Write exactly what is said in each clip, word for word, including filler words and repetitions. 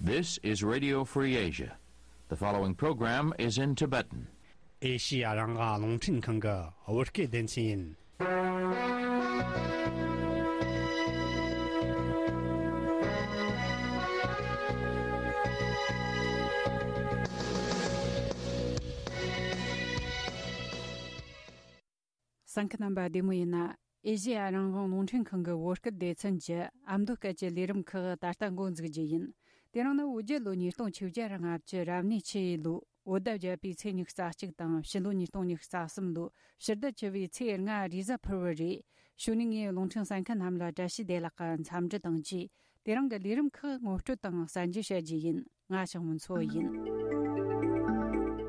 This is Radio Free Asia. The following program is in Tibetan. ཨེ་ཤི་ཡ་རང་དབང་རླུང་འཕྲིན་ཁང་གི་བོད་སྐད་སྡེ་ཚན་ཡིན། གསན་མཁན་རྣམ་པ་བདེ་མོ་ཡིན་ན། ཨེ་ཤི་ཡ་རང་དབང་རླུང་འཕྲིན་ཁང་གི་བོད་སྐད་སྡེ་ཚན་གྱི་ཨ་མདོ་སྐད་ཀྱི་ལས་རིམ་ཁག་ད་ལྟ་འགོ་འཛུགས་རྒྱུ་ཡིན། དེ་རིང་ནི་བོད་རྒྱལ་ལོ་ཉིས་སྟོང་བཅོ་བརྒྱད་རང་ལྔ་བཅུ་རབ་གནས་ཆུ་ཡོས་ལོའི་བོད་ཟླ་བརྒྱད་པའི་ཚེས་ཉི་ཤུ་རྩ་གཅིག་དང་ཕྱི་ལོ་ཉིས་སྟོང་ཉི་ཤུ་རྩ་གསུམ་ལོའི་ཕྱི་ཟླ་བཅུ་བའི་ཚེས་ལྔ་རེས་གཟའ་ཕུར་བུ་རེད། གཞུག་ནས་ངས་རླུང་འཕྲིན་གསན་མཁན་རྣམས་ལ་བཀྲ་ཤིས་བདེ་ལེགས་ཀྱི་འཚམས་འདྲི་དང་བཅས། དེ་རིང་གི་ལས་རིམ་ཁག་ངོ་སྤྲོད་དང་གསར་འགྱུར་བཤད་རྒྱུ་ཡིན། ང་ཞང་མུན་མཚོ་ཡིན།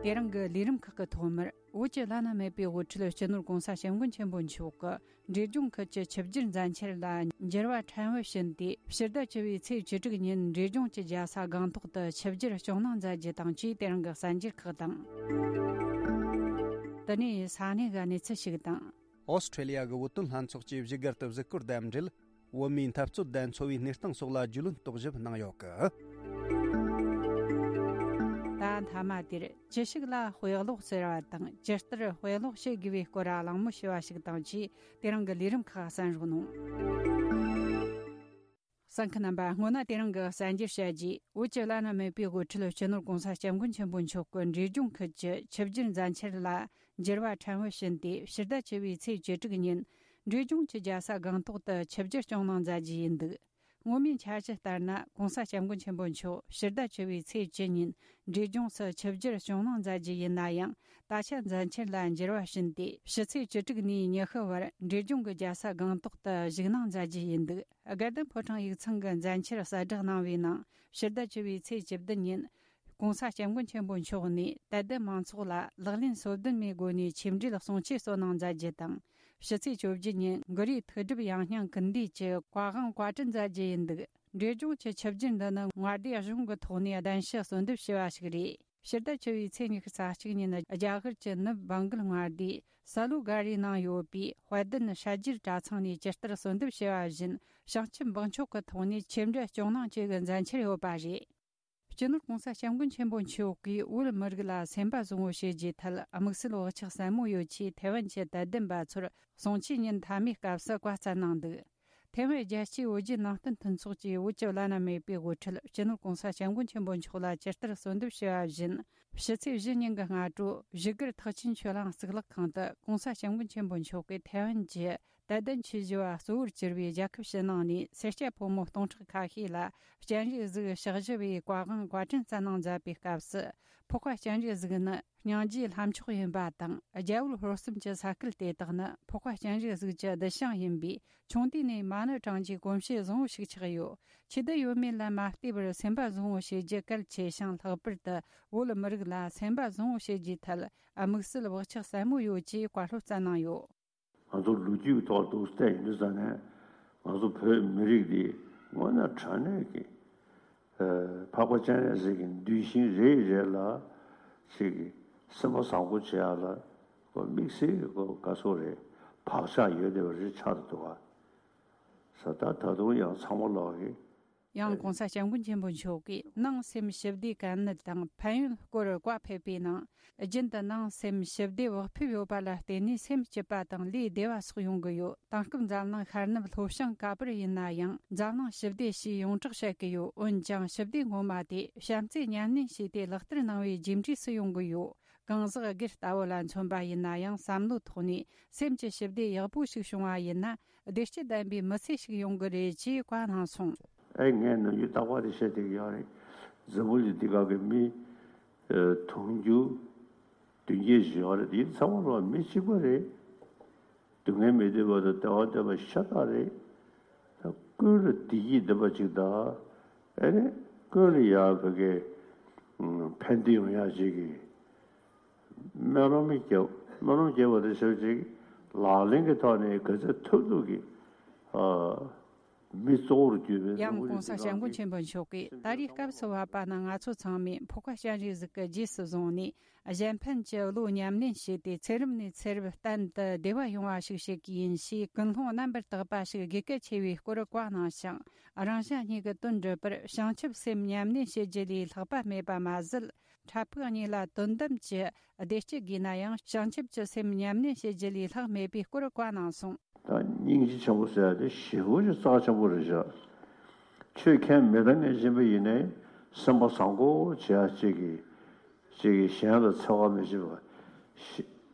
དེ་རིང་གི་ལས་རིམ་ཁག་གི་ཐོག་མར། བོད་ཀྱི་བླ་ན་མེད་པའི་དབུ་ཁྲིད་སྤྱི་ནོར་གོང་ས་སྐྱབས་མགོན་ཆེན་པོ་མཆོག་གིས་འབྲས་ལྗོངས་ཁུལ་གྱི་ཆུ་བསྒྱུར་མཛད་འཆར་ལ་འགྱུར་བ་ཕྲན་བུ་ཕྱིན་ཏེ། ཕྱི་ཟླ་བཅུ་བའི་ཚེས་བཅུ་དྲུག་ཉིན་འབྲས་ལྗོངས་ཀྱི་རྒྱལ་ས་སྒང་ཏོག་ཏུ་ཆུ་བསྒྱུར་སྐྱོང་གནང་མཛད་རྒྱུ་དང་བཅས། དེ་རིང་གི་གསར་འགྱུར་ཁག་དང་། དེ་ནས་ས་གནས་ཀྱི་གནས་ཚུལ་ཞིག་དང་། ཨོ་སི་ཁྲེ་ལི་ཡ་གི་བོད་དོན་ལྷན་ཚོགས་ཀྱིས་བཞུགས་སྒར་དུ་གཟིགས་སྐོར་དང་འབྲེལ། བོད་མིའི་འཐབ་རྩོད་དང་འཚོ་བའི་གནས་སྟངས་སོགས་ལ་རྒྱུས་ལོན་རྟོག་ཞིབ་གནང་ཡོད་གི། ད་མཐའ་མ་དེར་ཅི་ཞིག་ལ་དཔེ་ཀློག་ཟེར་བ་དང་ཇི་ལྟར་དཔེ་ཀློག་བྱེད་དགོས་པའི་སྐོར་གླེང་མོལ་བྱས་པ་ཞིག་དང་བཅས། དེ་རིང་གི་ལས་རིམ་ཁག་གསན་རོགས་གནང་། གསན་མཁན་རྣམ་པ། སྔོན་ན་དེ་རིང་གི་གསར་འགྱུར་བཤད་རྗེས། བོད་ཀྱི་བླ་ན་མེད་པའི་དབུ་ཁྲིད་སྤྱི་ནོར་གོང་ས་སྐྱབས་མགོན་ཆེན་པོ་མཆོག་གིས་འབྲས་ལྗོངས་ཁུལ་གྱི་ཆུ་བསྒྱུར་མཛད་འཆར་ལ་འགྱུར་བ་ཕྲན་བུ་ཕྱིན་ཏེ། ཕྱི་ཟླ་བཅུ་བའི་ཚེས་བཅུ་དྲུག་ཉིན་འབྲས་ལྗོངས་ཀྱི་རྒྱལ་ས་སྒང་ཏོག་ཏུ་ཆུ་བསྒྱུར་སྐྱོང་གནང་མཛད་རྒྱུ་ཡིན་འདུག། སྔོན་མའི་འཆར་གཞི་ལྟར་ན། གོང་ས་སྐྱབས་མགོན་ཆེན་པོ་མཆོག་ཕྱི་ཟླ་བཅུ་བའི་ཚེས་བཅུ་ཉིན་འབྲས་ལྗོངས་སུ་ཆུ་བསྒྱུར་སྐྱོང་གནང་མཛད་རྒྱུ་ཡིན་ན་ཡང་། ད་ཆ་མཛད་འཆར་ལ་འགྱུར་བ་ཕྱིན་ཏེ། ཕྱི་ཚེས་བཅུ་དྲུག་ནས་ཉི་ཤུ་བར་འབྲས་ལྗོངས་ཀྱི་རྒྱལ་ས་སྒང་ཏོག་ཏུ་བཞུགས་གནང་མཛད་རྒྱུ་ཡིན་འདུག། དགའ་ལྡན་ཕོ་བྲང་ཡིག་ཚང་གི་མཛད་འཆར་གསལ་བསྒྲགས་གནང་བའི་ནང་། ཕྱི་ཟླ་བཅུ་བའི་ཚེས་བཅུ་བདུན་ཉིན་གོང་ས་སྐྱབས་མགོན་ཆེན་པོ་མཆོག་ནས་དད་ལྡན་མང་ཚོགས་ལ་ལག་ལེན་སོ་བདུན་མའི་སྒོ་ནས་ཆིག་འགྲིལ་གསུང་ཆོས་སྩོལ་གནང་མཛད་རྒྱུ་དང་། ཕྱི་ཚེས་བཅོ་བརྒྱད་ཉིན་གུ་རུའི་ཐུགས་སྒྲུབ་ཡང་སྙིང་ཀུན་འདུས་ཀྱི་བཀའ་དབང་བཀའ་དྲིན་མཛད་རྒྱུ་ཡིན་འདུག། འབྲས་ལྗོངས་ཀྱི་ཆུ་བསྒྱུར་འདི་ནི་མངའ་སྡེ་གཞུང་གི་ཐོག་ནས་གདན་ཞུ་གསོལ་འདེབས་ཞུས་པ་ཞིག་རེད། ཕྱི་ཟླ་བཅུ་བའི་ཚེས་ཉི་ཤུ་རྩ་གཅིག་ཉིན་རྒྱ་གར་གྱི་ནུབ་བང་གལ་མངའ་སྡེའི་ས་ལུ་ག་རིའི་ནང་ཡོད་པའི་དཔལ་ལྡན་ཤར་རྒྱུད་གྲྭ་ཚང་ནས་ཇི་ལྟར་གསོལ་འདེབས་ཞུས་པ་བཞིན། བྱང་ཆུབ་འབངས་མཆོག་གི་ཐོག་ནས་ཆིག་འགྲིལ་སྐྱོང་གནང་བཅས་ཀྱི་མཛད་འཆར་ཡོད་པ་རེད། སྤྱི་ནོར་གོང་ས་སྐྱབས་མགོན་ཆེན་པོ་མཆོག་གིས་བོད་མི་རིགས་ལ་སེམས་པ་བཟང་བོ་བྱེད་རྒྱུའི་ཐད་དམིགས་བསལ་བག་ཆགས་ཟབ་མོ་ཡོད་ཅེས་ཐའེ་ཝན་གྱི་དད་ལྡན་པ་ཚོར་གསུང་ཆོས་ཉིན་མཐའ་མའི་སྐབས་སུ་བཀའ་སྩལ་གནང་འདུག། ཐའེ་ཝན་རྒྱལ་སྤྱིའི་བོད་བརྒྱུད་ནང་བསྟན་མཐུན་ཚོགས་ཀྱིས་བོད་ཀྱི་བླ་ན་མེད་པའི་དབུ་ཁྲིད་སྤྱི་ནོར་གོང་ས་སྐྱབས་མགོན་ཆེན་པོ་མཆོག་ལ་ཇི་ལྟར་གསོལ་འདེབས་ཞུས་པ་བཞིན། ཕྱི་ཚེས་བཞི་ཉིན་གྱི་སྔ་དྲོ་བཞུགས་སྒར་ཐེག་ཆེན་ཆོས་གླིང་གཙུག་ལག་ཁང་དུ་གོང་ས་སྐྱབས་མགོན་ཆེན་པོ་མཆོག་གིས་ཐའེ་ཝན་གྱི་དད་ལྡན་ཆོས་ཞུ་བ་གཙོ་བོར་གྱུར་པའི་རྒྱལ་ཁབ་ཕྱི་ནང་ནས་སེར་སྐྱ་ཕོ་མོ་སྟོང་ཕྲག་ཁ་ཤས་ལ་སྤྱན་རས་གཟིགས་ཕྱག་བཞི་པའི་བཀའ་དབང་བཀའ་དྲིན་སྩལ་གནང་མཛད་པའི་སྐབས་སུ། འཕགས་པ་སྤྱན་རས་གཟིགས་ནི་སྙིང་རྗེའི་ལྷ་མཆོག་ཡིན་པ་དང་། རྒྱལ་བུ་ཧོར་གསུམ་གྱི་ས་ཁུལ་དེ་དག་ནི་འཕགས་པ་སྤྱན་རས་གཟིགས་ཀྱི་གདུལ་ཞིང་ཡིན་པས། ཆུང་དུས་ནས་མ་ཎི་བགྲང་རྒྱུའི་གོམས་གཤིས་བཟང་བོ་ཞིག་ཆགས་ཡོད། ཆེ་བསྡད་ཡོད་མེད་ལ་མ་ལྟོས་པར་སེམས་པ་བཟང་བོ་བྱེད་རྒྱུ་གལ་ཆེ་ཞིང་། ལྷག་པར་དུ་བོད་མི་རིགས་ལ་སེམས་པ་བཟང་བོ་བྱེད་རྒྱུའི་ཐད་དམིགས་བསལ་བག་ཆགས་ཟབ་མོ་ཡོད་ཅེས་བཀའ་སློབ་སྩལ་གནང་ཡོད། ང་ཚོ་ལོ་རྒྱུས་ཀྱི་ཐོག་ཏུ་བལྟས་ཡིན་དུས་ཙང་ནས། ང་ཚོ་བོད་མི་རིགས་འདི་དངོས་གནས་དྲང་གནས་ཀྱི་ཨ་འཕགས་པ་སྤྱན་རས་གཟིགས་ཀྱི་གདུལ་ཞིང་རེ་རེ་ལ་ཅིག་གི་སེམས་པ་བཟང་པོ་བྱེད་ཡག་ལ་ཁོ་དམིགས་བསལ་གྱི་ཁོ་དགའ་ཚོར་རེ་བག་ཆགས་ཡོད་བསྡད་པ་རེ་ཆགས་འདུག་ག། ས་ད་ད་དུང་ཡང་ཚང་མ་ལོག་གི་ཡང་གོང་ས་སྐྱབས་མགོན་ཆེན་པོ་མཆོག་གིས་ནང་སེམས་ཞི་བདེ་གལ་གནད་དང་ཕན་ཡོན་སྐོར་བཀའ་ཕེབས་པའི་ནང་། རྒྱུན་དུ་ནང་སེམས་ཞི་བདེ་བག་ཕེབས་ཡོད་པ་ལ་བརྟེན་ནས་སེམས་སྐྱིད་པ་དང་ལུས་བདེ་བ་སོགས་ཡོང་གི་ཡོད། དེང་སྐབས་འཛམ་གླིང་ཤར་ནུབ་ལྷོ་བྱང་ག་པར་ཡིན་ན་ཡང་འཛམ་གླིང་ཞི་བདེ་ཞེས་ཡོངས་གྲགས་བཤད་ཀྱི་ཡོད། འོན་ཀྱང་ཞི་བདེ་ངོ་མ་དེ་བྱམས་བརྩེས་ཉམས་ལེན་བྱས་ཏེ་ལག་བསྟར་གནང་བའི་རྗེས་འབྲས་སུ་ཡོང་གི་ཡོད། གང་ཟག་སྒེར་ལྟ་བུ་ལ་མཚོན་པ་ཡིན་ན་ཡང་བསམ་བློའི་ཐོག་ནས་སེམས་ཀྱི་ཞི་བདེ་ཡག་པོ་ཞིག་བྱུང་བ་ཡིན་ན། བདེ་སྐྱིད་ལྡན་པའི་མི་ཚེ་ཞིག་ཡོང་གི་རེད་ཅེས་བཀའ་གནང་སོང་། ཨེ་ངས་ནམ་རྒྱུན་རྟག་པར་དེ་བཤད་བསྡད་ཀྱི་ཡོད་རེད། འཛམ་བུ་གླིང་འདི་ག་གི་མི་ཨ་དུང་ཕྱུར་བདུན་བརྒྱད་ཅིག་ཡོད་རེད། དེ་ཚང་མ་ལོ་མི་གཅིག་པ་རེད། སྡུག་བསྔལ་མི་འདོད་པ་དང་བདེ་བ་འདོད་པ་ཤ་སྟག་རེད། ད་ཀུན་ལ་བདེ་སྐྱིད་འདོད་པ་ཅིག་དང་། ཨེ་ནི་ཀུན་ལ་ཡ་བོད་སྐད་ཕན་བདེ་ཡོང་ཡག་ཅིག་གི་སྨོན་ལམ་རྒྱབ། སྨོན་ལམ་རྒྱབ་པ་དེ་ཞབས་ཅིག་ལག་ལེན་གྱི་ཐོག་ནས་ག་ཚོད་ཐུབ་ཐུབ་ཀྱིས་ཨ་ མི་གཙོ་བོར་གྱུར་པའི། ཡང་གོང་ས་སྐྱབས་མགོན་ཆེན་པོ་མཆོག་གིས། ད་རེས་སྐབས་སུ་བབ་པ་ན། ང་ཚོ་ཚང་མས་འཕོ་བ་སྤྱན་རས་གཟིགས་ཀྱི་རྗེས་སུ་བཟུང་ནས། གཞན་ཕན་གྱི་བློ་ཉམས་ལེན་བྱས་ཏེ། ཚེ་རབས་ནས་ཚེ་རབས་བརྟན་དུ་བདེ་བ་ཡོང་བ་ཞིག་བྱེད་ཀྱི་ཡིན་ཞེས། ཀུན་སློང་རྣམ་པར་དག་པ་ཞིག་དགོས་གལ་ཆེ་བའི་སྐོར་བཀའ་གནང་ཞིང་། རང་གཞན་གཉིས་ཀྱི་དོན་སྒྲུབ་པར། བྱང་ཆུབ་སེམས་ཉམས་ལེན་བྱེད་རྒྱུ་ལས་ལྷག་པ་མེད་པ་མ་ཟད། འཕྲལ་ཕུགས་གཉིས་ལ་དོན་དམ་གྱི་བདེ་སྐྱིད་དགོས་ན་ཡང་། བྱང་ཆུབ་ཀྱི་སེམས་ཉམས་ལེན་བྱེད་རྒྱུ་ལས་ལྷག་མེད་པའི་སྐོར་བཀའ་གནང་སོང་། ད་སྙིང་རྗེ་ཆེན་པོ་ཟེར་ཡ་དེ་ཞེ་པོ་ཅིག་རྩ་ཆེན་པོ་རེད་ཤག་ཆོས་ཁས་མི་འདང་མཁན་ཅིག་ཡིན་ནའི། སེམས་པ་བཟང་པོ་བྱེད་ཡ་གཅིག་གིས། གཅིག་གིས་གཞན་ལ་འཚེ་བ་མི་བྱེད་པ། ཤི-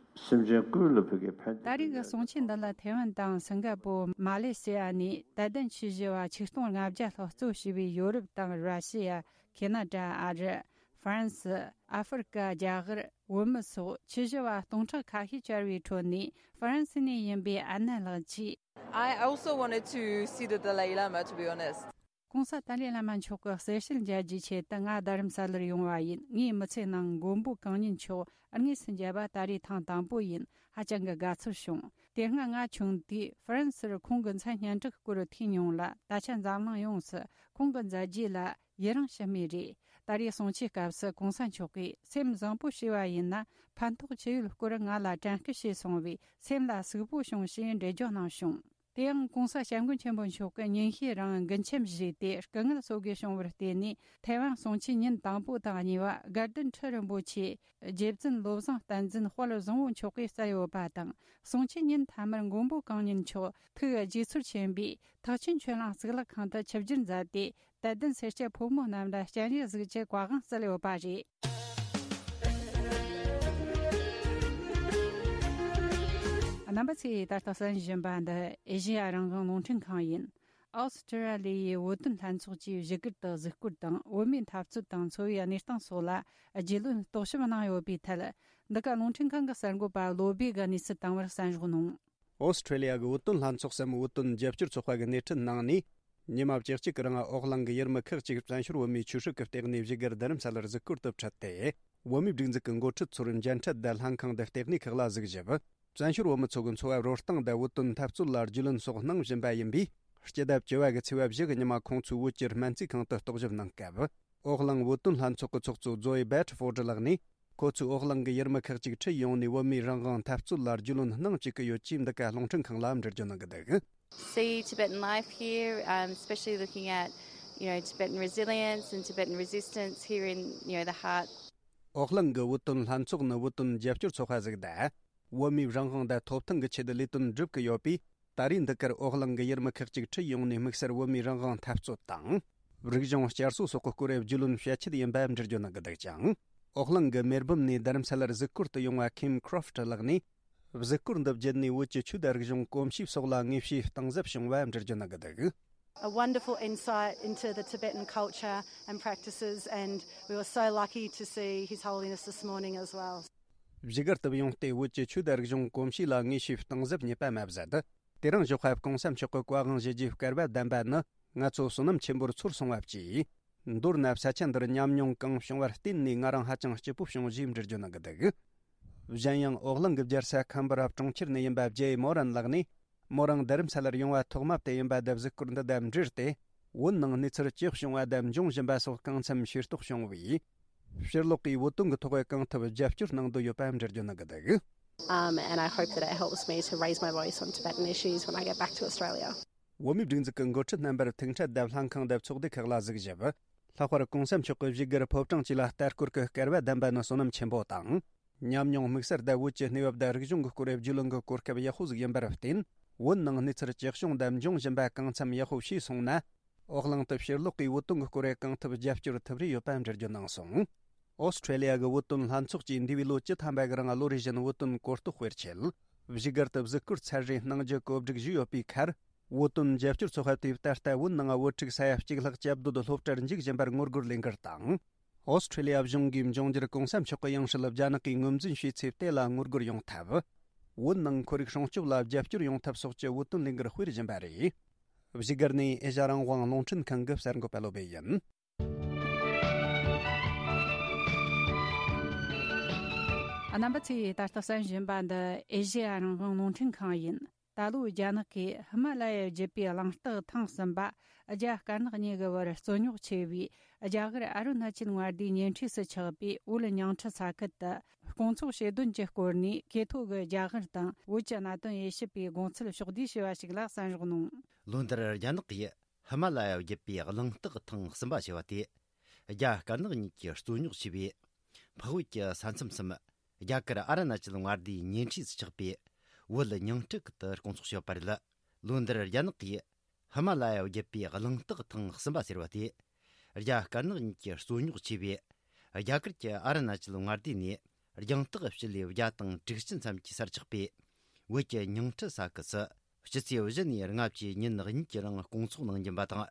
སེམས་ཅན་ཀུན་ལ་ཕན་གྱི་ཕན་བདེ། ད་རེས་ཀྱི་གསུང་ཆོས་འདི་ལ་ཐའེ་ཝན་དང་སིང་ག་པོ། མ་ལེ་ཤི་ཡ་ནས་དད་ལྡན་ཆོས་ཞུ་བ་ཆིག་སྟོང་ལྔ་བརྒྱ་ལྷག་གཙོ་བྱས་པའི་ཡོ་རོབ་དང་ར་ཤི་ཡ། ཁེ་ན་ཌ། ཨ་རི། ཧྥ་རན་སི། ཨ་ཧྥེ་རི་ཀ་རྒྱ་གར། བོད་མི་སོགས་ཆོས་ཞུ་བ་སྟོང་ཕྲག་ཁ་ཤས་བཅར་བའི་ཁྲོད་ནས། ཧྥ་རན་སི་ནས་ཡིན་པའི་ཨན་ན་ལགས་ཀྱིས། I also wanted to see the Dalai Lama, to be honest. གོང་ས་ཏཱ་ལའི་བླ་མ་མཆོག་གི་གསལ་བཤད་མཇལ་རྒྱུའི་ཆེད་དུ་ང་རྡ་རམ་ས་ལར་ཡོང་བ་ཡིན། ངའི་མི་ཚེ་ནང་མགོན་པོ་གང་ཉིད་མཆོག་དངོས་སུ་མཇལ་བ་ད་རེས་ཐེངས་དང་པོ་ཡིན། ཧ་ཅང་གི་དགའ་ཚོར་བྱུང་། དེ་སྔ་ང་ཆུང་དུས་ཧྥ་རན་སིར་ཁོང་གི་མཚན་སྙན་གྲགས་སྐོར་ཐོས་མྱོང་ལ། ད་ཆ་འཛམ་གླིང་ཡོངས་སུ་ཁོང་གི་མཛད་རྗེས་ལ་ཡི་རངས་ཞུ་མུས་རེད། ད་རེས་གསུང་ཆོས་སྐབས་སུ་གོང་ས་མཆོག་གིས། སེམས་བཟང་པོ་བྱས་པ་ཡིན་ན་ཕན་ཐོགས་ཆེ་ཡོད་སྐོར་ང་ལ་དྲན་སྐུལ་བྱས་སོང་བས། སེམས་ལ་ཟུག་པོ་བྱུང་ཞེས་འགྲེལ་བརྗོད་གནང་བྱུང་། དེ་ཡང་གོང་ས་སྐྱབས་མགོན་ཆེན་པོ་མཆོག་གིས་ཉིན་ཤས་རིང་མགུལ་ཆམ་བཞེས་ཏེ་སྐུ་ངལ་གསོ་དགོས་བྱུང་བར་བརྟེན་ནས། ཐའེ་ཝན་གསུང་ཆོས་ཉིན་དང་པོ་དང་གཉིས་པ་དགའ་ལྡན་ཁྲི་རིན་པོ་ཆེ་རྗེ་བཙུན་བློ་བཟང་བསྟན་འཛིན་དཔལ་བཟང་པོ་མཆོག་གིས་སྩལ་ཡོད་པ་དང་། གསུང་ཆོས་ཉིན་མཐའ་མར་མགོན་པོ་གང་ཉིད་མཆོག་ཐུགས་རྗེ་ཚོར་ཆེན་པོས་ཐེག་ཆེན་ཆོས་གླིང་གཙུག་ལག་ཁང་དུ་ཆིབས་བསྒྱུར་མཛད་དེ། དད་ལྡན་སེར་སྐྱ་ཕོ་མོ་རྣམས་ལ་སྤྱན་རས་གཟིགས་ཀྱི་བཀའ་དབང་སྩལ་ཡོད་པ་རེད། རྣམ་པ་ཚོས་ད་ལྟ་གསན་བཞིན་པ་འདི་ཨེ་ཤེ་ཡ་རང་དབང་རླུང་འཕྲིན་ཁང་ཡིན། ཨོ་སི་ཀྲི་ཡ་ལི་ཡའི་བོད་དོན་ལྷན་ཚོགས་ཀྱིས་བཞུགས་སྒར་དུ་གཟིགས་སྐོར་དང་། བོད་མིའི་འཐབ་རྩོད་དང་འཚོ་བའི་གནས་སྟངས་སོགས་ལ་རྒྱུས་ལོན་རྟོག་ཞིབ་གནང་ཡོད་པའི་ཐད། འདི་ག་རླུང་འཕྲིན་ཁང་གི་གསར་འགོད་པ་བློ་བྷེ་གིས་གནས་ཚུལ་བཏང་བར་གསན་རོགས་གནང་། ཨོ་སི་ཀྲི་ལི་ཡ་གི་བོད་དོན་ལྷན་ཚོགས་སམ། བོད་དོན་རྒྱབ་སྐྱོར་ཚོགས་པ་གི་སྣེ་ཁྲིད་གནང་ནས། ཉི་མ་བཅུ་གཅིག་གི་རིང་ཨོ་གླིང་གི་ཡུལ་མི་ཁག་ཅིག་བཙན་བྱོལ་བོད་མིའི་ཆོས་སྲིད་ཀྱི་ལྟེ་གནས་བཞུགས་སྒར་རྡ་རམ་ས་ལར་གཟིགས་སྐོར་དུ་ཁྲིད་དེ། བོད་མིའི་སྒྲིག་འཛུགས་ཀྱི་འགོ་ཁྲིད་ཚོར་མཇལ་འཕྲད་དང་ལྷན་ཁང་དུ་ལྟེ་གནས་ཁག་ལ་གཟིགས་ཞིབ། བཙན་བྱོལ་བོད་མི་ཚོ་གི་འཚོ་བ་རོལ་སྟངས་དང་བོད་དོན་འཐབ་རྩོད་ལ་རྒྱུས་ལོན་སོགས་གནང་བཞིན་པ་ཡིན་པས། སྤྱི་ཟླ་བཅུ་བ་གི་ཚེས་པ་བཞི་གི་ཉི་མ་ཁོང་ཚོའི་བོད་ཀྱི་སྨན་རྩིས་ཁང་དུ་རྟོག་ཞིབ་གནང་སྐབས། ཨོ་གླིང་བོད་དོན་ལྷན་ཚོགས་ཀྱི་ཚོགས་གཙོ་ཛོའི་བེ་ཏྲི་ཕོར་ཌི་ལགས་ནས། ཁོ་ཚོས་ཨོ་གླིང་གི་ཡུལ་མི་ཁག་ཅིག་ཁྲིད་ཡོང་ནས། བོད་མིའི་རང་དབང་འཐབ་རྩོད་ལ་རྒྱུས་ལོན་གནང་བཅུག་གི་ཡོད་ཅེས་འདི་ག་རླུང་འཕྲིན་ཁང་ལ་འགྲེལ་བརྗོད་གནང་གི་འདུག། See Tibetan life here, um, especially looking at, you know, Tibetan resilience and Tibetan resistance here in, you know, the heart. ཨོ་གླིང་གི་བོད་དོན་ལྷན་ཚོགས་ནི་བོད་དོན་རྒྱབ་སྐྱོར་ཚོགས་པ་ཟིག་དང་། བོད་མིའི་རང་དབང་དང་ཐོབ་ཐང་གི་ཆེད་ལས་དོན་སྒྲུབ་ཀྱི་ཡོད་པས། ད་རེས་འདི་གར་ཨོ་གླིང་གི་ཡུལ་མི་ཁག་ཅིག་ཁྲིད་ཡོང་ནས། དམིགས་བསལ་བོད་མིའི་རང་དབང་འཐབ་རྩོད་དང་། རིག་གཞུང་བསྐྱར་གསོ་སོགས་ཀྱི་སྐོར་རྒྱུས་ལོན་བྱེད་ཆེད་ཡིན་པ་འགྲེལ་བརྗོད་གནང་གི་འདུག་ཅིང་། ཨོ་གླིང་གི་མེལ་བྷོན་ནས་རྡ་རམ་ས་ལར་གཟིགས་སྐོར་དུ་ཡོང་བ་ཁིམ་ཁྲོ་ཕི་ཊི་ལགས་ནས། གཟིགས་སྐོར་འདི་བརྒྱུད་ནས་བོད་ཀྱི་ཆོས་དང་རིག་གཞུང་གོམས་གཤིས་སོགས་ལ་དངོས་བྱུང་གཏིང་ཟབ་བྱུང་བ་འགྲེལ་བརྗོད་གནང་གི་འདུག། A wonderful insight into the Tibetan culture and practices, and we were so lucky to see His Holiness this morning as well. བཞུགས་སྒར་དུ་ཡོང་སྟེ། བོད་ཀྱི་ཆོས་དང་རིག་གཞུང་གོམས་གཤིས་ལ་དངོས་བྱུང་གཏིང་ཟབ་རྙེད་པ་མ་ཟད། དེ་རིང་ཞོགས་པ་གོང་ས་མཆོག་གི་བཀའ་དབང་ཞུ་རྒྱུའི་སྐལ་བ་ལྡན་པ་ནི། ང་ཚོ་བསོད་ནམས་ཆེན་པོར་ཚོར་སོང་བ་བཅས། མདོར་ན་ས་ཆ་འདིར་ཉམས་མྱོང་གང་བྱུང་བར་བརྟེན་ནས། ང་རང་ཧ་ཅང་སྐྱིད་པོ་བྱུང་ཞེས་འགྲེལ་བརྗོད་གནང་གི་འདུག། གཞན་ཡང་ཨོ་གླིང་གི་རྒྱལ་ས་ཁམ་བྷ་ར་གྲོང་ཁྱེར་ནས་ཡིན་པ་ཇེ་མོ་རན་ལགས་ནས། མོ་རང་རྡ་རམ་ས་ལར་ཡོང་བ་ཐོག་མ་དེ་ཡིན་པ་དང་། གཟིགས་སྐོར་འདི་དང་འབྲེལ་ཏེ། བོད་ནང་གནས་ཚུལ་ཇི་བྱུང་བ་དང་འབྱུང་བཞིན་པ་སོགས་གང་འཚམ་ཤེས་རྟོགས་བྱུང་བས། ཕྱིར་ལོག་གིས་བོད་དོན་གྱི་ཐོག་གང་ཐུབ་རྒྱབ་སྐྱོར་གནང་འདོད་ཡོད་པ་འགྲེལ་བརྗོད་གནང་གི་འདུག། Um, and I hope that it helps me to raise my voice on Tibetan issues when I get back to Australia. བོད་མིའི་སྒྲིག་འཛུགས་ཀྱི་འགོ་ཁྲིད་རྣམ་པར་ཐུག་འཕྲད་དང་ལྷན་ཁང་དང་ཚོགས་སྡེ་ཁག་ལ་གཟིགས་ཞིབ། ལྷག་པར་གོང་ས་མཆོག་གི་བཞུགས་སྒར་ཕོ་བྲང་བཅས་ལ་ལྟ་སྐོར་གྱི་སྐལ་བ་ལྡན་པ་ནི་བསོད་ནམས་ཆེན་པོ་དང་། ཉམས་མྱོང་དམིགས་བསལ་དང་བོད་ཀྱི་གནས་བབ་དང་རིག་གཞུང་གི་སྐོར་རྒྱུས་ལོན་གྱི་གོ་སྐབས་ཡག་པོ་ཟིག་ཡིན་པར་བརྟེན། བོད་ནང་གནས་ཚུལ་ཇི་བྱུང་དང་འབྱུང་བཞིན་པ་གང་འཚམ་ཡག་པོ་ཤེས་སོང་ན། ཨོ་གླིང་དུ་ཕྱིར་ལོག་གིས་བོད་དོན་གྱི་སྐོར་གང་ཐུབ་རྒྱབ་སྐྱོར་ཐུབ་རེ་ཡོད་པ་འགྲེལ་བརྗོད་གནང་སོང་། ཨོ་སི་ཁྲེ་ལི་ཡ་གི་བོད་དོན་ལྷན་ཚོགས་ཀྱིས་འདས་པའི་ལོ་བཅུ་ཐམ་པ་གི་རིང་ལོ་རེ་བཞིན་བོད་དོན་གོ་རྟོགས་སྤེལ་ཆེད། བཞུགས་སྒར་དུ་གཟིགས་སྐོར་ཚར་རེ་གནང་རྒྱུ་གོ་སྒྲིག་ཞུས་ཡོད་པའི་ཁར། བོད་དོན་རྒྱབ་སྐྱོར་ཚོགས་པ་དེས་ད་ལྟ་བོད་ནང་བོད་ཕྲུག་ས་ཡ་གཅིག་ལྷག་སྐྱབས་འདོད་སློབ་གྲྭར་འཇུག་བཞིན་པར་ངོ་རྒོལ་ལས་འགུལ་དང་། ཨོ་སི་ཁྲེ་ལི་ཡ་གཞུང་གིས་འབྱུང་འགྱུར་གོང་ས་མཆོག་གི་ཡང་སྲིད་རྒྱ་ནག་གིས་ངོས་འཛིན་བྱས་ཚེ་དེ་ལ་ངོ་རྒོལ་ཡོང་ཐབས། བོད་ནང་ཁོར་ཡུག་སྲུང་སྐྱོབ་ལ་རྒྱབ་སྐྱོར་ཡོང་ཐབས་སོགས་ཀྱི་བོད་དོན་ལས་འགུལ་སྤེལ་བཞིན་པ་རེད། བཞུགས་སྒར་ནས་ཨེ་ཤ་རང་དབང་རླུང་འཕྲིན་ཁང་གི་གསར་འགོད་པ་བློ་བྷེ་ཡིན། རྣམ་པ་ཚོས་ད་ལྟ་གསན་བཞིན་པ་འདི་ཨེ་ཤེ་ཡ་རང་དབང་རླུང་འཕྲིན་ཁང་ཡིན། ད་ལོའི་རྒྱ་ནག་གིས་ཧི་མ་ལ་ཡ་བརྒྱུད་པའི་གླེང་སྟེགས་ཐེངས་གསུམ་པ་རྒྱ་དཀར་ནག་གཉིས་ཀྱི་བར་རྩོད་རྙོག་ཆེ་བའི་རྒྱ་གར་ཨ་རུ་ན་ཅལ་མངའ་སྡེའི་ཉེ་འཁྲིས་སུ་ཆགས་པའི་བོད་ཉིང་ཁྲི་ས་ཁུལ་དུ་སྐོང་ཚོགས་བྱེད་དོན་གྱི་སྐོར་ནས་གྲོས་ཐོག་གི་རྒྱ་གར་དང་བོད་ཀྱི་གནད་དོན་དབྱེ་ཞིབ་པའི་དགོངས་ཚུལ་ཕྱོགས་བསྡུས་ཞུས་པ་ཞིག་ལ་གསན་རོགས་གནང་། ལོ་འདིར་རྒྱ་ནག་གིས་ཧི་མ་ལ་ཡ་བརྒྱུད་པའི་གླེང་སྟེགས་ཐེངས་གསུམ་པ་བྱས་པ་དེ། རྒྱ་དཀར་ནག་གཉིས་ཀྱི་རྩོད་རྙོག་ཆེ་བའི་འཕགས་བོད་ཀྱི་ས་མཚམས་སམ། རྒྱ་གར་ཨ་རུ་ན་ཅལ་མངའ་སྡེའི་ཉེ་འཁྲིས་སུ་ཆགས་པའི་བོད་ཉིང་ཁྲི་ཁུལ་དུ་སྐོང་ཚོགས་བྱས་པ་རེད། ལོ་འདིར་རྒྱ་ནག་གིས་ཧི་མ་ལ་ཡ་བརྒྱུད་པའི་གླེང་སྟེགས་ཐེངས་གསུམ་པ་ཟེར་བ་དེ། རྒྱ་དཀར་ནག་གཉིས་ཀྱི་རྩོད་རྙོག་ཆེ་བའི་རྒྱ་གར་གྱི་ཨ་རུ་ན་ཅལ་མངའ་སྡེ་ནས་རྒྱང་ཐག་སྤྱི་ལེ་བརྒྱ་དང་དྲུག་ཅུ་མཚམས་ཀྱི་སར་ཆགས་པའི་བོད་ཀྱི་ཉིང་ཁྲི་ས་ཁུལ་སུ། སྤྱི་ཚེས་བཞི་ནས་ལྔ་བཅུའི་ཉིན་གཉིས་ཀྱི་རིང་སྐོང་ཚོགས་གནང་རྒྱུ་ཡིན་པ་དང་།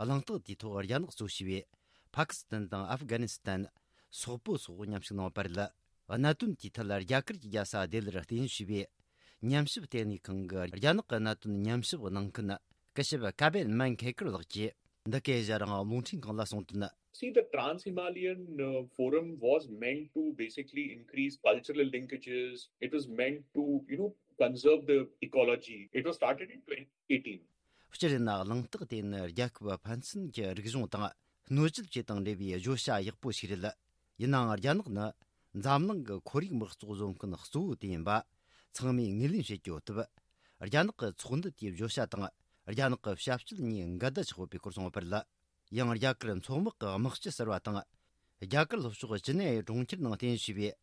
གླེང་སྟེགས་དེའི་ཐོག་རྒྱ་ནག་གཙོ་བྱས་པའི་ཕ་ཀི་སི་ཐན་དང་ཨབ་གྷ་ནི་སི་ཐན། སོག་པོ་སོགས་མཉམ་ཞུགས་གནང་བ་རེད། གནད་དོན་དེའི་ཐད་རྒྱ་གར་གྱི་རྒྱལ་ས་ལྡི་ལིར་རྟེན་གཞི་བྱས་པའི་ཉམས་ཞིབ་ལྟེ་གནས་ཁང་གི་རྒྱ་ནག་གི་གནད་དོན་ཉམས་ཞིབ་གནང་མཁན་སྐུ་ཞབས་ཀ་བེན་མན་ཁེ་ཀར་ལགས་ཀྱིས་འདི་གའི་ཞལ་རང་རླུང་འཕྲིན་ཁང་ལ་གསུངས་དོན། See, the Trans Himalayan uh, Forum was meant to basically increase cultural linkages. It was meant to, you know, conserve the ecology. It was started in twenty eighteen. སྤྱིར་ཡིན་ན་གླེང་སྟེགས་དེ་ནི་རྒྱལ་ཁབ་ཕན་ཚུན་གྱི་རིག་གཞུང་དང་སྣོད་བཅུད་བཅས་དང་འབྲེལ་བའི་བརྗོད་བྱ་ཡག་པོ་ཞིག་རེད། ཡིན་ནའང་རྒྱ་ནག་ནི་འཛམ་གླིང་གི་ཁོར་ཡུག་དམག་བཙོག་བཟོ་མཁན་གཙོ་བོ་དེ་ཡིན་པ་ཚང་མས་ངོས་ལེན་བྱེད་ཀྱི་ཡོད་སྟབས། རྒྱ་ནག་གི་ཚོགས་འདུ་དེའི་བརྗོད་བྱ་དང་རྒྱ་ནག་གི་ཞབས་ཞུ་གཉིས་འགལ་ཟླ་ཆགས་ཡོད་པའི་སྐོར་གསུངས་པ་རེད། ཡང་རྒྱ་གར་མཚོ་དམག་གི་དམག་སྤྱི་ཟེར་བ་དང་། རྒྱ་གར་ལྷོ་ཕྱོགས་ཅི་ནེ་གྲོང་ཁྱེར་ནང་རྟེན་གཞི་བྱས་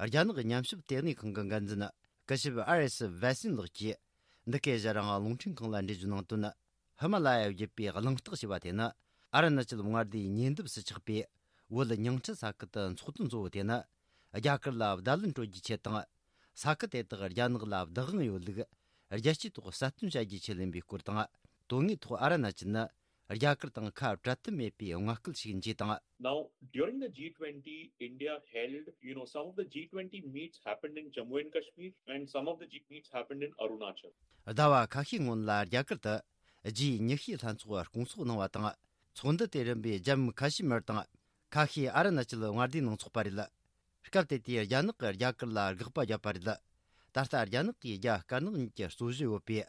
པའི་རྒྱ་ནག་ཉམས་ཞིབ་ལྟེ་གནས་ཁང་གི་འགན་འཛིན་སྐུ་ཞབས་ཨར་ཨེས་ཝེ་སིན་ལགས་ཀྱིས་འདི་གའི་ཞལ་རང་རླུང་འཕྲིན་ཁང་ལ་འགྲེལ་བརྗོད་གནང་དོན། ཧི་མ་ལ་ཡ་བརྒྱུད་པའི་གླེང་སྟེགས་ཞེས་པ་དེ་ནི་ཨ་རུ་ན་ཅལ་མངའ་སྡེའི་ཉེ་འདབས་སུ་ཆགས་པའི་བོད་ཉིང་ཁྲི་ས་ཁུལ་དུ་འཚོགས་དོན་གཙོ་བོ་དེ་ནི་རྒྱ་གར་ལ་བརྡ་ལན་སྤྲོད་རྒྱུའི་ཆེད་དང་། ས་ཁུལ་དེ་དག་རྒྱ་ནག་ལ་བདག་དབང་ཡོད་ལུགས་རྒྱལ་སྤྱིའི་ཐོག་གསལ་སྟོན་བྱ་རྒྱུའི་ཆེད་ལེན་པའི་སྐོར་དང་། དོན་དངོས་ཐོག་ཨ་རུ་ན་ཅལ་ནི་རྒྱ་གར་དང་ཁ་བྲལ་ཐབས་མེད་པའི་མངའ་སྐད་ཞིག་ཡིན་ཅེས་དང་། Now, during the G twenty, India held, you know, some of the G twenty meets happened in Jammu and Kashmir, and some of the G meets happened in Arunachal. ཟླ་བ་ཁ་ཤས་སྔོན་ལ་རྒྱ་གར་དུ་ཇི་ཉི་ཤུའི་ལྷན་ཚོགས་སྐོང་ཚོགས་གནང་བ་དང་། ཚོགས་འདུ་དེ་རིམ་པས་ཇམ་མུ་ཁ་ཤི་མིར་དང་ཁ་ཤས་ཨ་རུ་ན་ཅལ་མངའ་སྡེའི་ནང་འཚོགས་པ་རེད། སྐབས་དེ་དུས་རྒྱ་ནག་གིས་རྒྱ་གར་ལ་དགག་པ་བརྒྱབ་པ་རེད། ད་ལྟ་རྒྱ་ནག་གིས་རྒྱ་དཀར་ནག་གཉིས་ཀྱི་རྩོད་གཞི་ཡོད་པའི་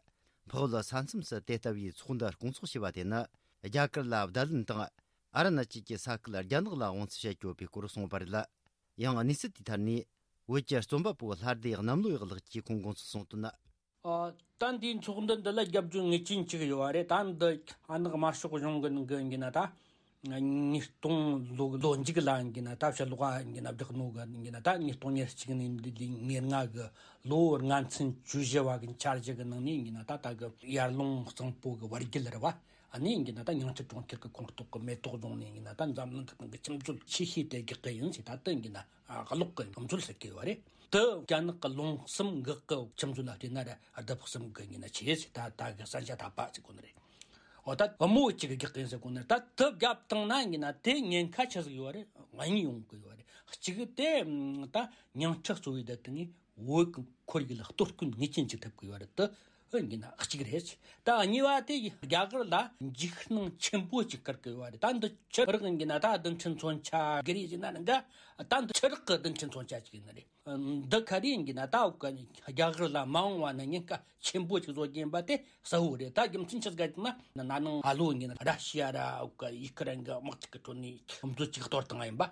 འཕགས་བོད་ས་མཚམས་སུ་དེ་ལྟ་བུའི་ཚོགས་འདུ་སྐོང་ཚོགས་བྱས་པ་དེ་ནི་རྒྱ་གར་ལ་བརྡ་ལན་དང་། ཨ་རུ་ན་ཅལ་གྱི་ས་ཁུལ་རྒྱ་ནག་ལ་དབང་བཙན་བྱེད་ཀྱི་ཡོད་པའི་སྐོར་གསུངས་པ་རེད། ཡང་གནས་ཚུལ་དེའི་ཐད་ནས་བོད་ཀྱི་རྩོམ་པ་པོ་ལྷ་སྡེ་གནམ་ལོ་ཡག་ལགས་ཀྱིས་ཁོང་དགོངས་ཚུལ་གསུངས་དོན། ཨ། ད་འདིའི་ཚོགས་འདུ་འདི་ལ་རྒྱབ་སྐྱོར་ངེས་ཅན་ཅིག་ཡོད་པ་རེད། ད་འདི་ཨ་ནག་དམར་ཤོག་གཞུང་གི་ནང་གི་ཡིན་ན་ད། ཉིས་སྟོང་ལོ་ལོ་མཇུག་ལ་ཡིན་ན་ད་ཕྱི་ལོགས་ཡིན་ན་བསྒྲགས་ནོ་གི་ཡིན་ན་ད་ཉིས་སྟོང་ཉེར་གཅིག་ནས་འདི་ལོའི་ཉེར་ལྔ་གི་ལོ་ལྔ་ཚན་བཅུ་བཞི་བ་གི་འཆར་གཞི་གི་ནང་ནས་ཡིན་ན་ད་ད་གི་ཡར་ཀླུང་གཙང་པོ་གི་བར་རྒྱུད་རེད་བ། ཨ་ནི་ཡིན་ན་ད་ཉིང་ཁྲི་གྲོང་ཁྱེར་གི་ཁོངས་གཏོགས་གི་མེ་ཏོག་རྫོང་ནས་ཡིན་ན་ད་འཛམ་གླིང་གི་ནང་གི་ཁྱིམ་སྤྱོད་ཆེ་ཤོས་དེ་རྒྱག་གི་ཡིན་ཟེར། ད་དེ་ཡིན་ན་ཨ་གློག་གི་ཁྱིམ་སྤྱོད་ཟེར་གི་ཡོད་རེད། དེ་རྒྱ་ནག་གི་ལུང་གསུམ་འགག་གི་ཁྱིམ་སྤྱོད་ལ་བལྟས་ན་ར་ལྡབ་གསུམ་གི་ཡིན་ན་ཆེ་ཟེར། ད་ད་གི་ས་ཆ་ཐ་པ་ཟེར་གོ་ནི་རེད། འོ་ད་བུ་མོ་གཅིག་གི་རྒྱག་གི་ཡིན་ཟེར་གོ་ནི་རེད། ད་དེ་བརྒྱབ་བཏང་ན་ཡིན་ན་དེ་ཉེན་ཁ་ཆེ་ཟིག་ཡོད་རེད། གཉིས་ཡོང་གི་ཡོད་རེད། གཅིག་དེ་ད་ཉིང་ཁྲི་གཙོ་བོའི་དེ་དེ་ནི་བོད་ཀྱི་ཁོར་ཡུག་ལ་གཏོར་སྐྱོན་ངེས་ཅན་ཅིག་ཐེབས་ཀྱི་ཡོད་རེད་དེ། ཨ་ཡིན་ན་གཅིག་རེད། ད་གཉིས་པ་དེ་རྒྱ་གར་ལ་འཇིགས་སྣང་ཆེན་པོ་ཅིག་བསྐུལ་གྱི་ཡོད་རེད། ད་འདི་ཆུ་རགས་ཡིན་ན་ད་རྡུལ་ཕྲན་མཚོན་ཆ་གི་རེད་ཟེར་ན་འདྲ། ད་འདི་ཆུ་རགས་ཀྱི་རྡུལ་ཕྲན་མཚོན་ཆ་ཅིག་ཡིན་ནི་རེད། འདི་ག་རེ་ཡིན་ན་ད་འུ་ག་རྒྱ་གར་ལ་མ་འོངས་པ་ན་ཉེན་ཁ་ཆེན་པོ་ཅིག་བཟོ་རྒྱུ་ཡིན་པ་དེ་གསལ་བོ་རེད། ད་རྒྱུ་མཚན་ཆི་ཟིག་ཡིན་ན་ན་ནིང་ཨ་ལོ་ཡིན་ན་ར་ཤི་ཡ་ར་འུ་ག་ཡུ་ཁུ་རེན་གྱི་དམག་འཁྲུག་གི་ཁྲོད་ནས་ཁྱིམ་སྤྱོད་ཅིག་གཏོར་བཏང་ཡིན་པ།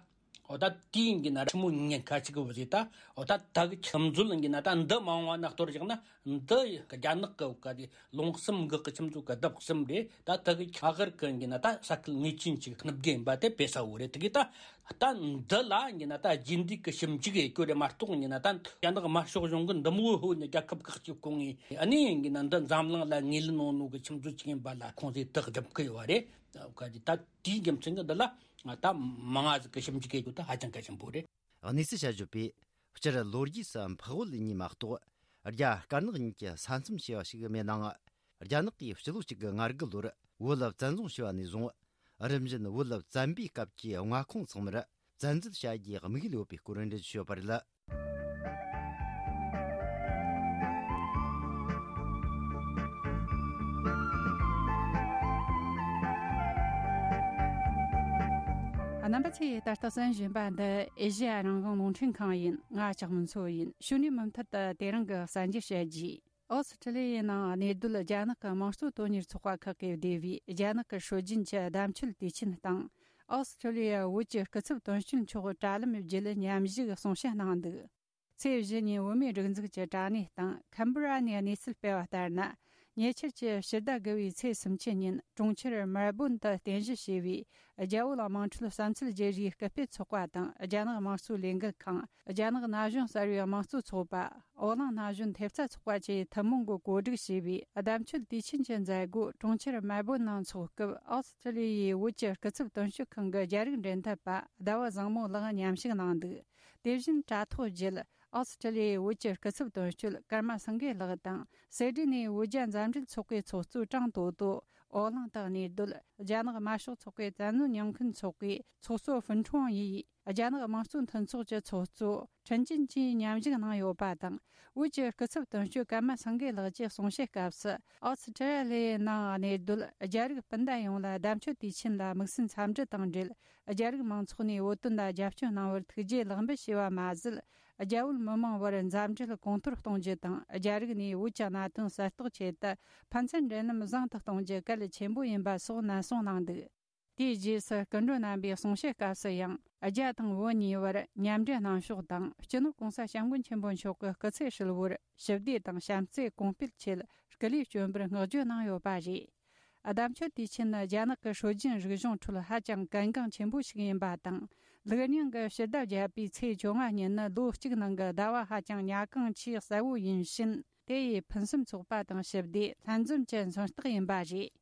འོ་ད་དེའི་ཡིན་ན་ཆི་མོ་ཉེན་ཁ་ཅིག་གི་བཟོས་ད། འོ་ད་ད་གི་ཁྱིམ་སྤྱོད་ཡིན་ན་ད་འདི་མ་འོངས་པ་ན་གཏོར་བཞག་ན་འདི་རྒྱ་ནག་གི་ག་དེ་ལུང་གསུམ་འགག་གི་ཁྱིམ་སྤྱོད་གི་ལྡབ་གསུམ་རེད། ད་ད་གི་ཁ་གར་གི་ཡིན་ན་ད་ས་ཁུལ་ངེས་ཅན་ཅིག་སྣུབ་རྒྱུ་ཡིན་པ་དེ་དཔེ་གསལ་བོ་རེད། དེ་གི་ད་ད་འདི་ལ་ཡིན་ན་ད་རྗེས་འདེད་གི་ཞིབ་འཇུག་ཡེད་རྒྱུ་རེད་མ་གཏོགས་ཡིན་ན་ད་རྒྱ་ནག་དམར་ཤོག་གཞུང་གི་འདི་མོ་ཧོ་ནི་རྒྱལ་ཁབ་ཁག་ཅིག་སྐོང་ངེས་ཨ་ནི་ཡིན་ན་འདི་འཛམ་གླིང་ལ་ངོས་ལེན་ནོ་ནོ་གི་ཁྱིམ་སྤྱོད་ཅིག་ཡིན་པ་ལ་ཁོང་ཚོས་དག་སྒྲུབ་གི་ཡོད་རེད། ག་དེ་ད་དེའི་རྒྱུ་མཚན་གྱིས་འདི་ལ་ད་མང་ང་ཟིག་གི་ཞིབ་འཇུག་བྱེད་རྒྱུ་ད་ཧ་ཅང་གལ་ཆེན་པོ་རེད། གནས་ཚུལ་བཤད་བརྗོད་པས། སྤྱིར་ལོ་རྒྱུས་སུ་འཕགས་བོད་གཉིས་མ་གཏོགས་རྒྱ་དཀར་ནག་གཉིས་ཀྱི་ས་མཚམས་ཞེས་པ་ཞིག་མེད་ནའང་། རྒྱ་ནག་གིས་སྤྱི་ལོ་གཅིག་དགུ་ལྔ་དགུ་ལོར་བོད་བཙན་བཟུང་བྱས་པ་ནས་བཟུང་། རིམ་བཞིན་བོད་བཙན་པོའི་སྐབས་ཀྱི་མངའ་ཁོངས་ཚང་མར་བཙན་འཛུལ་བྱ་རྒྱུའི་དམིགས་ཡུལ་ཡོད་པའི་སྐོར་འགྲེལ་བརྗོད་བྱས་ཡོད་པ་རེད། རྣམ་པ་ཚོས་ད་ལྟ་གསན་བཞིན་པ་འདི་ཨེ་ཤེ་ཡ་རང་དབང་རླུང་འཕྲིན་ཁང་ཡིན། ང་ལྕགས་མོ་མཚོ་ཡིན། ཕྱི་ནས་མུ་མཐུད་དུ་དེ་རིང་གི་གསར་འགྱུར་བཤད་རྒྱུ། ཨོ་སི་ཁྲི་ལི་ཡའི་ནང་གནས་སྡོད་རྒྱ་ནག་གི་དམངས་གཙོ་དོན་གཉེར་ཚོགས་པ་ཁག་གིས་བསྡུས་པའི་རྒྱ་ནག་གི་སྲོལ་རྒྱུན་གྱི་བརྡ་མཆོད་དུས་ཆེན་དང་། ཨོ་སི་ཁྲི་ལི་ཡའི་བོད་ཀྱི་སྐུ་ཚབ་དོན་གཅོད་མཆོག་དྲ་ལམ་བརྒྱུད་མཉམ་ཞུགས་གསུང་བཤད་གནང་འདུག་ཚེས་བཞི་ཉིན་བོད་མིའི་སྒྲིག་འཛུགས་ཀྱི་དྲ་གནས་སྟེང་ཁན་བྷི་ར་ནས་གནས་ཚུལ་སྤེལ་བ་ལྟར་ན། ཉེ་ཆར་གྱི་ཕྱི་ཟླ་དགུ་བའི་ཚེས་སུམ་ཅུ་ཉིན་གྲོང་ཁྱེར་མལ་སྦོན་དུ་རྟེན་གཞི་བྱས་པའི་རྒྱ་བོད་དམངས་ཁྲོད་བསམ་ཚུལ་བརྗེ་རེས་སྐུལ་སྤེལ་ཚོགས་པ་དང་། རྒྱ་ནག་དམངས་གཙོའི་ལས་འགུལ་ཁང་། རྒྱ་ནག་ན་གཞོན་གསར་བའི་དམངས་གཙོ་ཚོགས་པ། འོ་གླིང་ན་གཞོན་ཐེབས་རྩ་ཚོགས་པ་བཅས་ཐུན་མོང་གིས་གོ་སྒྲིག་བྱས་པའི་བརྡ་མཆོད་དུས་ཆེན་གྱི་མཛད་སྒོ་གྲོང་ཁྱེར་མལ་སྦོན་ནང་འཚོགས་སྐབས། ཨོ་སི་ཁྲི་ལི་ཡའི་བོད་ཀྱི་སྐུ་ཚབ་དོན་གཅོད་ཁང་གི་རྒྱ་རིགས་འབྲེལ་མཐུད་པ་ཟླ་བ་བཟང་མོ་ལགས་མཉམ་ཞུགས་གནང་འདུག་དེ་བཞིན་དྲ་ཐོག་བརྒྱུད། ཨོ་སི་ཁྲི་ལི་ཡའི་བོད་ཀྱི་སྐུ་ཚབ་དོན་གཅོད་ཀརྨ་སེང་གེ་ལགས་དང་། སེ་ཌི་ནས་བོད་རྒྱ་མཛའ་འབྲེལ་ཚོགས་པའི་ཚོགས་གཙོ་ཀྲང་ཏོ་ཏོ། ཨོ་གླིང་དུ་གནས་སྡོད་རྒྱ་ནག་དམར་ཤོག་ཚོགས་པའི་བཙན་གནོན་ཉེས་མཁན་ཚོགས་པའི་ཚོགས་གཙོ་ཧྥུན་ཁྲོང་ཡིས། རྒྱ་ནག་དམངས་གཙོ་མཐུན་ཚོགས་ཀྱི་ཚོགས་གཙོ་ཁྲིན་ཅིན་གྱིས་མཉམ་ཞུགས་གནང་ཡོད་པ་དང་། བོད་ཀྱི་སྐུ་ཚབ་དོན་གཅོད་ཀརྨ་སེང་གེ་ལགས་ཀྱིས་གསུང་བཤད་སྐབས་སུ། ཨོ་སི་ཁྲི་ལི་ཡའི་ནང་གནས་སྡོད་རྒྱ་རིགས་སྤུན་ཟླ་ཡོངས་ལ་བརྡ་མཆོད་དུས་ཆེན་ལ་དམིགས་བསལ་འཚམས་འདྲི་དང་འབྲེལ། རྒྱ་རིགས་མང་ཚོགས་ནས་བོད་དོན་ལ་རྒྱབ་སྐྱོར་གནང་བར་ཐུགས་རྗེ་ལེགས་འབུལ་ཞུས་པ་མ་ཟད། རྒྱ་བོད་མི་མང་བར་མཛའ་འབྲེལ་གོང་མཐོར་གཏོང་རྒྱུ་དང་། རྒྱ་རིགས་ནས་བོད་ཀྱི་གནད་དོན་གསལ་རྟོགས་ཆེད་དུ་ཕན་ཚུན་འབྲེལ་ལམ་བཟང་དུ་གཏོང་རྒྱུ་གལ་ཆེན་པོ་ཡིན་པ་སོགས་ནན་གསུང་གནང་འདུག་དེའི་རྗེས་སུ་སྐུ་མགྲོན་རྣམ་པའི་གསུང་བཤད་སྐབས་སུ་ཡང་། རྒྱ་དང་བོད་གཉིས་བར་མཉམ་འབྲེལ་གནང་ཕྱོགས་དང་། སྤྱི་ནོར་༸གོང་ས་༸སྐྱབས་མགོན་ཆེན་པོ་མཆོག་གི་སྐུ་ཚེ་ཧྲིལ་བོར་ཞི་བདེ་དང་བྱམས་བརྩེ་གོང་སྤེལ་ཆེད་སྐུ་ལས་བསྐྱོན་པར་བསྔགས་བརྗོད་གནང་ཡོད་པ་རེད། བརྡ་མཆོད་དུས་ཆེན་ནི་རྒྱ་ནག་གི་སྲོལ་རྒྱུན་རིག་གཞུང་ཁྲོད་ཧ་ཅང་གལ་འགངས་ཆེན་པོ་ཞིག་ཡིན་པ་དང་། ལུགས་རྙིང་གི་ཕྱི་ཟླ་བརྒྱད་པའི་ཚེས་བཅོ་ལྔ་ཉིན་ནི་ལོ་གཅིག་ནང་གི་ཟླ་བ་ཧ་ཅང་ཉ་གང་ཆེས་གསལ་བོ་ཡིན་ཕྱིན། དེ་ཡིས་ཕུན་སུམ་ཚོགས་པ་དང་ཞི་བདེ་ལྷན་འཛོམས་ཀྱི་མཚོན་རྟགས་ཡིན་པ་རེད།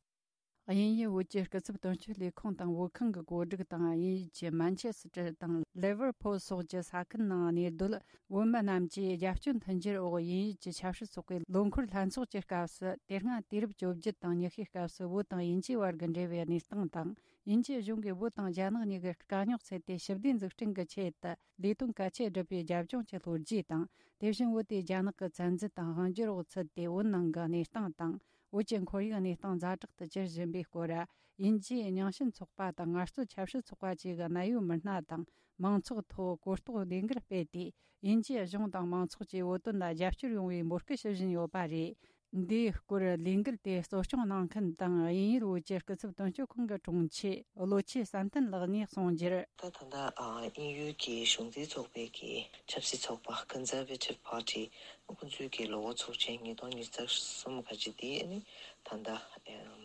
དབྱིན་ཡུལ་བོད་ཀྱི་སྐུ་ཚབ་དོན་གཅོད་ལས་ཁུངས་དང་བོད་ཁང་གི་གོ་སྒྲིག་དང་། དབྱིན་ཡུལ་གྱི་མན་ཆེ་སི་ཏྲ་དང་ལེ་ཝར་ཕུལ་སོགས་ཀྱི་ས་ཁུལ་ནང་གནས་སྡོད་བོད་མི་རྣམས་ཀྱིས་རྒྱབ་སྐྱོར་མཐུན་འགྱུར་འོག་དབྱིན་ཡུལ་གྱི་ཆབ་སྲིད་ཚོགས་པའི་ལོ་འཁོར་ལྷན་ཚོགས་ཀྱི་སྐབས་སུ། དེ་སྔ་དུས་རབས་བཅོ་བརྒྱད་དང་ཉི་ཤུའི་སྐབས་སུ་བོད་དང་དབྱིན་ཇིའི་བར་གྱི་འབྲེལ་བའི་གནས་སྟངས་དང་། དབྱིན་ཇིའི་གཞུང་གིས་བོད་དང་རྒྱ་ནག་གཉིས་ཀྱི་དཀའ་རྙོག་སེལ་ཏེ་ཞི་བདེ་འཛུགས་སྐྲུན་གྱི་ཆེད་དུ་ལས་དོན་གལ་ཆེ་བསྒྲུབས་པའི་རྒྱབ་ལྗོངས་ཀྱི་ལྷོ་རྒྱུད་དང་། དེ་བཞིན་བོད་དེ་རྒྱ་ནག་གི་བཙན་འཛུལ་དང་དབང་སྒྱུར་འོག་ཚུད་དེ་བོད་ནང་གི་གནས་སྟངས་དང་། བོད་ཀྱི་ཁོར་ཡུག་གནས་སྟངས་ཛ་དྲག་ཏུ་གྱུར་བཞིན་པའི་སྐོར། དབྱིན་ཇིའི་རྙིང་ཞེན་ཚོགས་པ་དང་ངལ་རྩོལ་ཆབ་སྲིད་ཚོགས་པ་བཅས་ཀྱི་གནད་ཡོད་མི་སྣ་དང་མང་ཚོགས་ཐོག་གོ་རྟོགས་ལས་འགུལ་སྤེལ་ཏེ། དབྱིན་ཇིའི་གཞུང་དང་མང་ཚོགས་ཀྱིས་བོད་དོན་ལ་རྒྱབ་སྐྱོར་ཡོང་བའི་འབོད་སྐུལ་ཞུ་བཞིན་ཡོད་པ་རེད། འདིའི་སྐོར་ལས་འགུལ་དེ་གཙོ་སྐྱོང་གནང་མཁན་དང་། དབྱིན་ཡུལ་བོད་ཀྱི་སྐུ་ཚབ་དོན་གཅོད་ཁང་གི་དྲུང་ཆེ་བློ་ཆོས་བསམ་གཏན་ལགས་ནས་གསུངས་རྒྱུར། ད་ད་ལྟ་ཨ་དབྱིན་ཡུལ་གྱི་གཞུང་འཛིན་ཚོགས་པའི་གི་ཆབ་སྲིད་ཚོགས་པ་Conservative Party ཁོང་ཚོའི་གི་ལོ་འཁོར་ཚོགས་ཆེན་ཉིས་སྟོང་ཉི་ཤུ་རྩ་གསུམ་ག་ཅི་དེ་ནི་ད་ལྟ་ཨམ་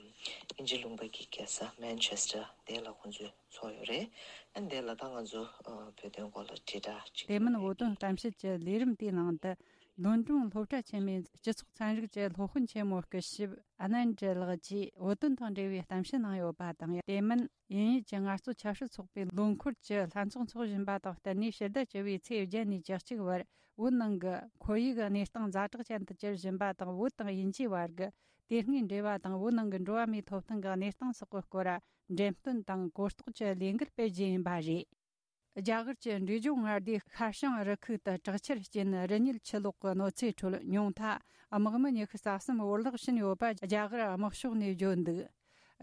དབྱིན་ཇི་ལུང་པ་གི་རྒྱལ་ས་Manchester དེ་ལ་ཁོང་ཚོས་ཚོགས་ཡོད་རེད། ཨ་ནི་དེ་ལ་ད་ང་ཚོ་ཨ་བོད་དོན་སྐོར་ལ་དྲིལ་བསྒྲགས་ཅིག་དེ་མིན་བོད་དོན་གཏམ་བཤད་ཀྱི་ལས་རིམ་དེའི་ནང་དུ། ལོན་ཀྲུང་སློབ་གྲྭ་ཆེན་མོའི་སྤྱི་ཚོགས་ཚན་རིག་གི་སློབ་དཔོན་ཆེན་མོ་སྐུ་ཞབས་ཨ་ནན་ཏྲེ་ལགས་ཀྱིས་བོད་དོན་དང་འབྲེལ་བའི་གཏམ་བཤད་གནང་ཡོད་པ་དང་། དེ་མིན་དབྱིན་ཡུལ་གྱི་ངལ་རྩོལ་ཆབ་སྲིད་ཚོགས་པའི་ལོ་འཁོར་གྱི་ལྷན་ཚོགས་འཚོགས་བཞིན་པ་དང་བསྟུན་ནས། ཕྱི་ཟླ་བཅུ་བའི་ཚེས་བརྒྱད་ནས་བཅུ་གཅིག་བར་བོད་ནང་གི་ཁོར་ཡུག་གི་གནས་སྟངས་ཛ་དྲག་ཅན་དུ་གྱུར་བཞིན་པ་དང་། བོད་དང་དབྱིན་ཇིའི་བར་གྱི་དེ་སྔའི་འབྲེལ་བ་དང་། བོད་ནང་གི་འགྲོ་བ་མིའི་ཐོབ་ཐང་གི་གནས་སྟངས་སོགས་ཀྱི་སྐོར་འགྲེམས་སྟོན་དང་གོ་རྟོགས་ཀྱི་ལས་འགུལ་སྤེལ་རྒྱུ་ཡིན་པ་རེད། རྒྱ་གར་གྱི་འབྲས་ལྗོངས་མངའ་སྡེའི་ཤར་བྱང་རི་ཁུག་ཏུ་དྲག་ཆར་རྐྱེན་རི་ཉིལ་ཆུ་ལོག་གི་གནོད་འཚེའི་ཁྲོད། ཉུང་མཐའ་དམག་མི་ཉི་ཤུ་རྩ་གསུམ་བོར་བརླག་ཕྱིན་ཡོད་པ་རྒྱ་གར་དམག་ཕྱོགས་ནས་བརྗོད་འདུག་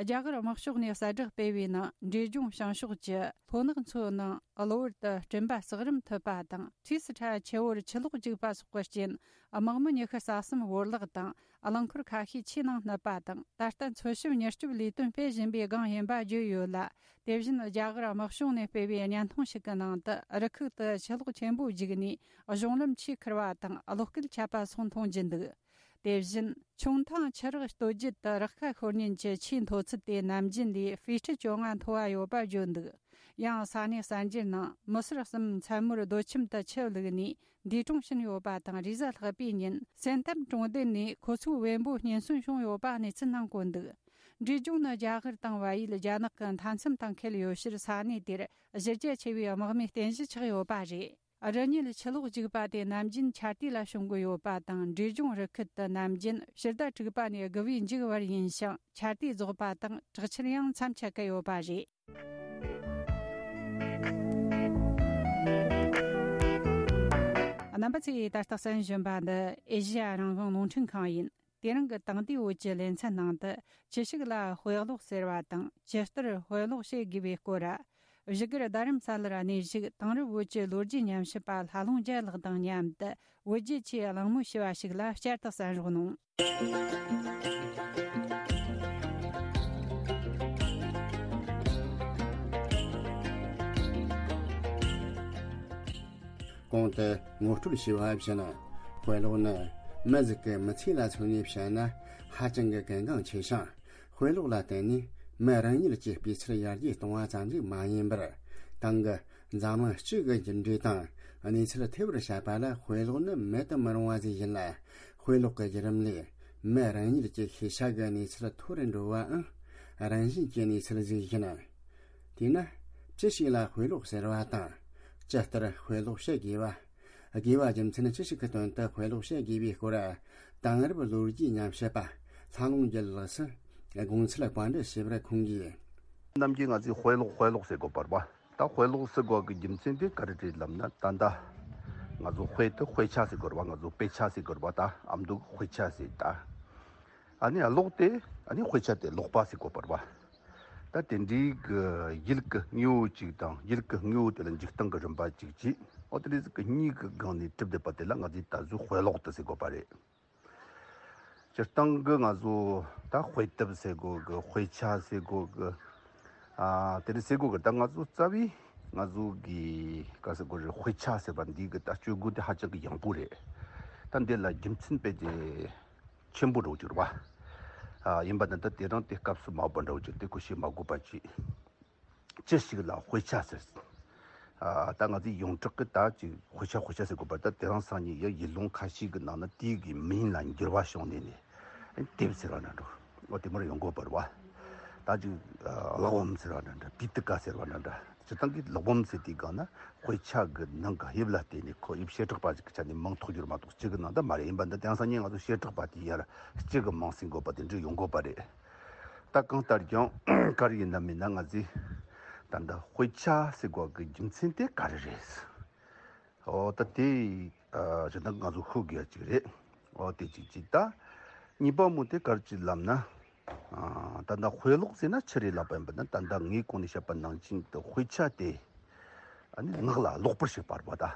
རྒྱ་གར་དམག་ཕྱོགས་ནས་གསལ་བསྒྲགས་སྤེལ་བའི་ནང་། འབྲས་ལྗོངས་བྱང་ཕྱོགས་ཀྱི་ལྷོ་ནག་མཚོའི་ནང་གློ་བུར་དུ་སྤྲིན་པ་ཟག་རིམ་ཐུབ་པ་དང་། ཁྲིས་སི་ཁྲ་ཆུ་བོར་ཆུ་ལོག་རྒྱུག་པ་སོགས་ཀྱི་རྐྱེན་དམག་མི་ཉི་ཤུ་རྩ་གསུམ་བོར་བརླག་དང་། རླངས་འཁོར་ཁ་ཤས་ཆུའི་ནང་བསྣུབས་པ་དང་། ད་ལྟ་འཚོལ་ཞིབ་མྱུར་སྐྱོབ་ལས་དོན་སྤེལ་བཞིན་པའི་སྒང་ཡིན་པ་བརྗོད་ཡོད་ལ། དེ་བཞིན་རྒྱ་གར་དམག་གཞུང་ནས་སྤེལ་བའི་བརྙན་ཐུང་ཞིག་གི་ནང་དུ། རི་ཁུག་ཏུ་ཆུ་ལོག་ཆེན་པོ་རྒྱུག་ནས་གཞུང་ལམ་ཆུས་ཁུར་བ་དང་། གློག་སྐུད་ཆད་པ་སོགས་མཐོང་རྒྱུ་འདུག་དེ་བཞིན་ཆུང་ཐང་ཆུ་རགས་སྟོད་རྒྱུད་དུ་རགས་ཁ་ཤོར་ཉེན་གྱི་ཆུའི་མཐོ་ཚད་དེ་ནམ་རྒྱུན་ལས་ཧྥི་ཊི་བཅོ་ལྔ་མཐོ་བ་ཡོད་པ་བརྗོད་འདུག་ཡང་ས་གནས་གསར་འགྱུར་ནང་། མི་སེར་གསུམ་མཚན་མོར་རྡོ་ཁྱིམ་དུ་ཆུ་བླུགས་ནས་འདས་གྲོངས་ཕྱིན་ཡོད་པ་དང་། རེས་གཟའ་ལྷག་པའི་ཉིན་སེན་ཏམ་གྲོང་སྡེ་ནས་ཁོ་ཚོའི་བེམ་པོ་རྙེད་སོན་བྱུང་ཡོད་པ་གནས་ཚུལ་ནང་བཀོད་འདུག་འབྲས་ལྗོངས་ནི་རྒྱ་གར་དང་བལ་ཡུལ་རྒྱ་ནག་གི་མཐའ་མཚམས་དང་འཁེལ་ཡོད་ཕྱིར། ས་གནས་དེར་གཞི་རྒྱ་ཆེ་བའི་དམག་མིའི་རྟེན་གཞི་ཆགས་ཡོད་པ་རེད། རི་ཉིལ་ཆུ་ལོག་རྒྱུག་པ་དེ་ནམ་རྒྱུན་ཆར་དུས་ལ་བྱུང་གི་ཡོད་པ་དང་། འབྲས་ལྗོངས་རི་ཁུལ་དུ་ནམ་རྒྱུན་ཕྱི་ཟླ་དྲུག་པ་ནས་དགུ་པའི་མཇུག་བར་ཡིན་ཞིང་། ཆར་དུས་རྫོགས་པ་དང་དྲག་ཆར་ཡང་མཚམས་ཆད་ཀྱི་ཡོད་པ་རེད། རྣམ་པ་ཚོས་ད་ལྟ་གསན་བཞིན་པ་འདི་ཨེ་ཤེ་ཡ་རང་དབང་རླུང་འཕྲིན་ཁང་ཡིན། དེ་རིང་གི་དེང་དུས་བོད་ཀྱི་ལེ་ཚན་ནང་དུ། ཅི་ཞིག་ལ་དཔེ་ཀློག་ཟེར་བ་དང་། ཇི་ལྟར་དཔེ་ཀློག་བྱེད་དགོས་པའི་སྐོར། བཞུགས་སྒར་རྡ་རམ་ས་ལར་གནས་བཞུགས་དེང་རབས་བོད་ཀྱི་ལོ་རྒྱུས་ཉམས་ཞིབ་པ་ལྷ་ལུང་རྒྱལ་ལགས་དང་མཉམ་དུ་བོད་རྒྱའི་ཆེས་གླེང་མོལ་ཞུ་བ་ཞིག་ལ་བསྐྱར་དུ་གསན་རོགས་གནང་། གོང་དུ་ངོ་སྤྲོད་ཞུས་པ་བཞིན། དཔེ་ཀློག་ནི་མི་ཟིག་གི་མི་ཚེ་ལ་མཚོན་ནས་བཤད་ན་ཧ་ཅང་གི་གལ་འགངས་ཆེ་ཞིང་། དཔེ་ཀློག་ལ་བརྟེན་ནས་མི་རང་ཉིད་ཀྱི་སྤུས་ཚད་ཡར་རྒྱས་གཏོང་བ་ཙམ་ཞིག་མ་ཡིན་པར། ཏང་གི་འཛམ་གླིང་སྤྱི་གི་འགྱུར་འགྲོས་དང་གནས་ཚུལ་ཐེ་བར་བྱེད་པ་ལ་དཔེ་ཀློག་ནི་མེད་དུ་མི་རུང་བ་ཞིག་ཡིན་ལ། དཔེ་ཀློག་གི་བརྒྱུད་རིམ་ལས་མི་རང་ཉིད་ཀྱི་ཤེས་བྱ་གི་གནས་ཚད་མཐོ་རུ་འགྲོ་བའང་རང་བཞིན་གྱི་གནས་ཚུལ་ཞིག་ཡིན། དེས་ན། ཅི་ཞིག་ལ་དཔེ་ཀློག་ཟེར་བ་དང་། ཇི་ལྟར་དཔེ་ཀློག་བྱེད་དགོས་པ། དགོས་པ་རྒྱུ་མཚན་ཅི་ཞིག་གི་དོན་དུ་དཔེ་ཀློག་བྱེད་དགོས་པའི་སྐོར། དེང་རབས་ལོ་རྒྱུས་ཉམས་ཞིབ་པ་ལྷ་ལུང་རྒྱལ་ལགས་སུ་དགོངས་ཚུལ་བཀའ་འདྲི་ཞུས་པར་ཁོང་གིས། ནམ་རྒྱུན་ང་ཚོས་དཔེ་ཀློག་དཔེ་ཀློག་ཟེར་དགོས་པ་རེད་པ། ད་དཔེ་ཀློག་ཟེར་དགོས་ཀྱི་རྒྱུ་མཚན་དེ་ག་རེ་རེད་ལབ་ན། ད་ལྟ་ང་ཚོ་དཔེ་དེ་དཔེ་ཆ་ཟེར་དགོས་རེད་པ། ང་ཚོ་དཔེ་ཆ་ཟེར་དགོས་རེད་པ། ད་ཨ་མདོ་གི་དཔེ་ཆ་ཟེར། ད་ཨ་ནི་ཀློག་དེ་ཨ་ནི་དཔེ་ཆ་དེ་ཀློག་པ་ཟེར་དགོས་པ་རེད་པ། ད་དེ་འདྲའི་གི་ཡུལ་གི་དངོས་པོ་གཅིག་དང་། ཡུལ་གི་དངོས་པོ་དེ་ལ་འཇིག་སྟངས་ཀྱི་རིམ་པ་གཅིག་བྱས། འོ་དེ་འདྲ་ཟིག་གི་གཉིས་ཀྱི་སྒང་ནས་གྲུབ་བསྡད་པ་དེ་ལ་ང་ཚོས་ད་གཟོད་དཔེ་ཀློག་དེ་ཟེར་དགོས་པ་རེད། སྤྱིར་བཏང་གི་ང་ཚོ་ད་དཔེ་དེབ་ཟེར་དགོས་གི། དཔེ་ཆ་ཟེར་དགོས་གི། ཨ་དེ་འདྲ་ཟེར་དགོས་གི། ད་ང་ཚོ་རྩ་བའི་ང་ཚོ་གི་ག་ཟེར་དགོས་རེད། དཔེ་ཆ་ཟེར་བ་འདི་གི་ད་སྤྱོད་སྒོ་དེ་ཧ་ཅང་གི་ཡང་པོ་རེད། ད་འདི་ལ་རྒྱུ་མཚན་དཔེ་དེ་ཆེན་པོ་འདྲ་བོ་ཅིག་རེད་པ། ཨ་ཡིན་པ་ན་ད་དེ་རིང་དེ་སྐབས་སུ་མ་བབས་པ་འདྲ་བོ་ཅིག་དེ་ཁོ་བཤད་མ་དགོས་པ་ཅིག་ཅི་ཞིག་ལ་དཔེ་ཆ་ཟེར། ཨ་ད་ང་ཚོས་ཡོངས་གྲགས་ཀྱི་ད་ཅིག་དཔེ་ཆ་དཔེ་ཆ་ཟེར་དགོས་པ། ད་དེ་རིང་སང་ཉིན་ཡང་ཡུལ་ལུང་ཁ་ཤས་ཀྱི་ནང་ན་དེའི་གི་མིང་ལ་འགྱུར་བ་བྱུང་ནས་ནས་དེབ་ཟེར་བ་འདྲ་འདྲ། འོ་དེ་མར་ཡོང་དགོས་པ་རེད་པ། ད་ཅིག་ཨ་གླེགས་བམ་ཟེར་བ་འདྲ་འདྲ། པི་ཏི་ཀ་ཟེར་བ་འདྲ་འདྲ། སྤྱིར་བཏང་གི་ཀློག་སྦོམ་ཟེར་དུས་སྒང་ན་དཔེ་ཆ་གི་ནང་གི་དབྱིབས་ལ་བརྟེན་ནས་ཁོ་དབྱིབས་བྱེ་བྲག་པ་ཞིག་གི་ཆ་ནས་མིང་ཐོགས་རྒྱུ་རེད་མ་གཏོགས་སྤྱི་གི་ནང་ད་མ་རེད། ཡིན་པ་འདི་དེང་སང་ཉིན་ང་ཚོ་བྱེ་བྲག་པ་དེ་ཡར་སྤྱི་གི་མིང་ཟེར་དགོས་པ་དེ་འདྲ་ཡོང་དགོས་པ་རེད། ད་གང་ལྟར་ཀྱང་ག་རེ་ཡིན་ན་མིན་ན་ང་ཚོས་ད་ལྟ་དཔེ་ཆ་ཟེར་དགོས་གི་རྒྱུ་མཚན་དེ་ག་རེ་རེད། འོ་ད་དེ་ཨ་སྤྱིར་བཏང་ང་ཚོ་ཤོད་དགོས་ཡ་ཅིག་རེད། འོ་དེ་གཅིག་གཅིག་ད་གཉིས་པ་མོ་དེ་ག་རེ་ཅིག་ལབ་ན། ཨ་ད་ལྟ་དཔེ་ཀློག་ཟེར་ན་ཆི་རེད་ལབ་པ་ཡིན་པ་ན། ད་ལྟ་ངས་གོང་ནས་བཤད་པ་ནང་བཞིན་དུ་དཔེ་ཆ་དེ་ཨ་ནི་ངག་ལ་ཀློག་པར་བྱེད་པ་རེད་པ། ད་ཨ་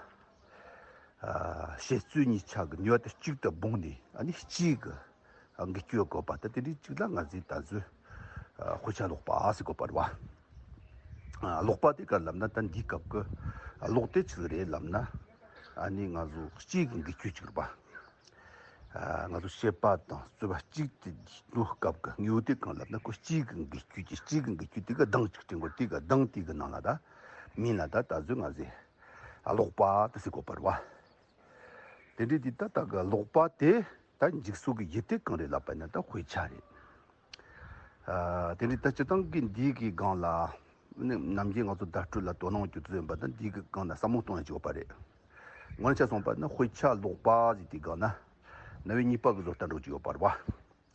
བཤད་རྩོད་གཉིས་ཆ་གི་ནུས་པ་དེ་གཅིག་ཏུ་སྦུངས་ནས་ཨ་ནི་གཅིག་གི་འགུལ་སྐྱོད་དགོས་པ། ད་དེ་འདྲའི་གཅིག་ལ་ང་ཚོས་ད་གཟོད་ཨ་དཔེ་ཆ་ཀློག་པ་ཟེར་དགོས་པ་རེད་པ། ཨ་ཀློག་པ་དེ་ག་ལབ་ན། ད་འདིའི་སྐབས་ཀྱི་ཨ་ཀློག་དེ་ཆི་ཟིག་རེད་ལབ་ན། ཨ་ནི་ང་ཚོ་གཅིག་གི་འགུལ་སྐྱོད་ཅིག་རེད་པ། ཨ་ང་ཚོ་བཤད་པ་དང་རྩོད་པ་གཅིག་དེ་འགྲོ་སྐབས་ཀྱི་དངོས་པོ་དེ་གང་ལབ་ན། ཁོ་གཅིག་གི་འགུལ་སྐྱོད་ཀྱི། གཅིག་གི་འགུལ་སྐྱོད་དེ་གི་གདངས་གཅིག་དྲན་དགོས། དེ་གི་གདངས་དེ་གི་ནང་ལ་ད་མིང་ལ་ད་ད་གཟོད་ང་ཚོས་ཨ་ཀློག་པ་དེ་ཟེར་དགོས་པ་རེད་པ། དེ་འདྲའི་དེ་ད་ལྟ་གི་ཀློག་པ་དེ་ད་འཇུག་ས་གི་ཡུལ་དེ་གང་རེད་ལབ་པ་ན་ད་དཔེ་ཆ་རེད། ཨ་དེ་འདྲའི་ད་སྤྱིར་བཏང་གི་འདིའི་གི་སྒང་ལ་ནི་ནམ་རྒྱུན་ང་ཚོ་བརྡ་སྤྲོད་ལ་དོ་སྣང་བྱེད་དུ་ཡོད་པ་ད་འདིའི་གི་སྒང་ལ་བསམ་བློ་གཏོང་ཡ་ཅིག་ཡོད་པ་རེད། ངོ་མ་ཆ་སོང་པ་ན་དཔེ་ཆ་ཀློག་པ་ཟེར་དུས་སྒང་ན་རྣམ་དབྱེ་གཉིས་པ་གི་བཟོ་ལྟ་འདྲ་བོ་ཅིག་ཡོད་པ་རེད་པ།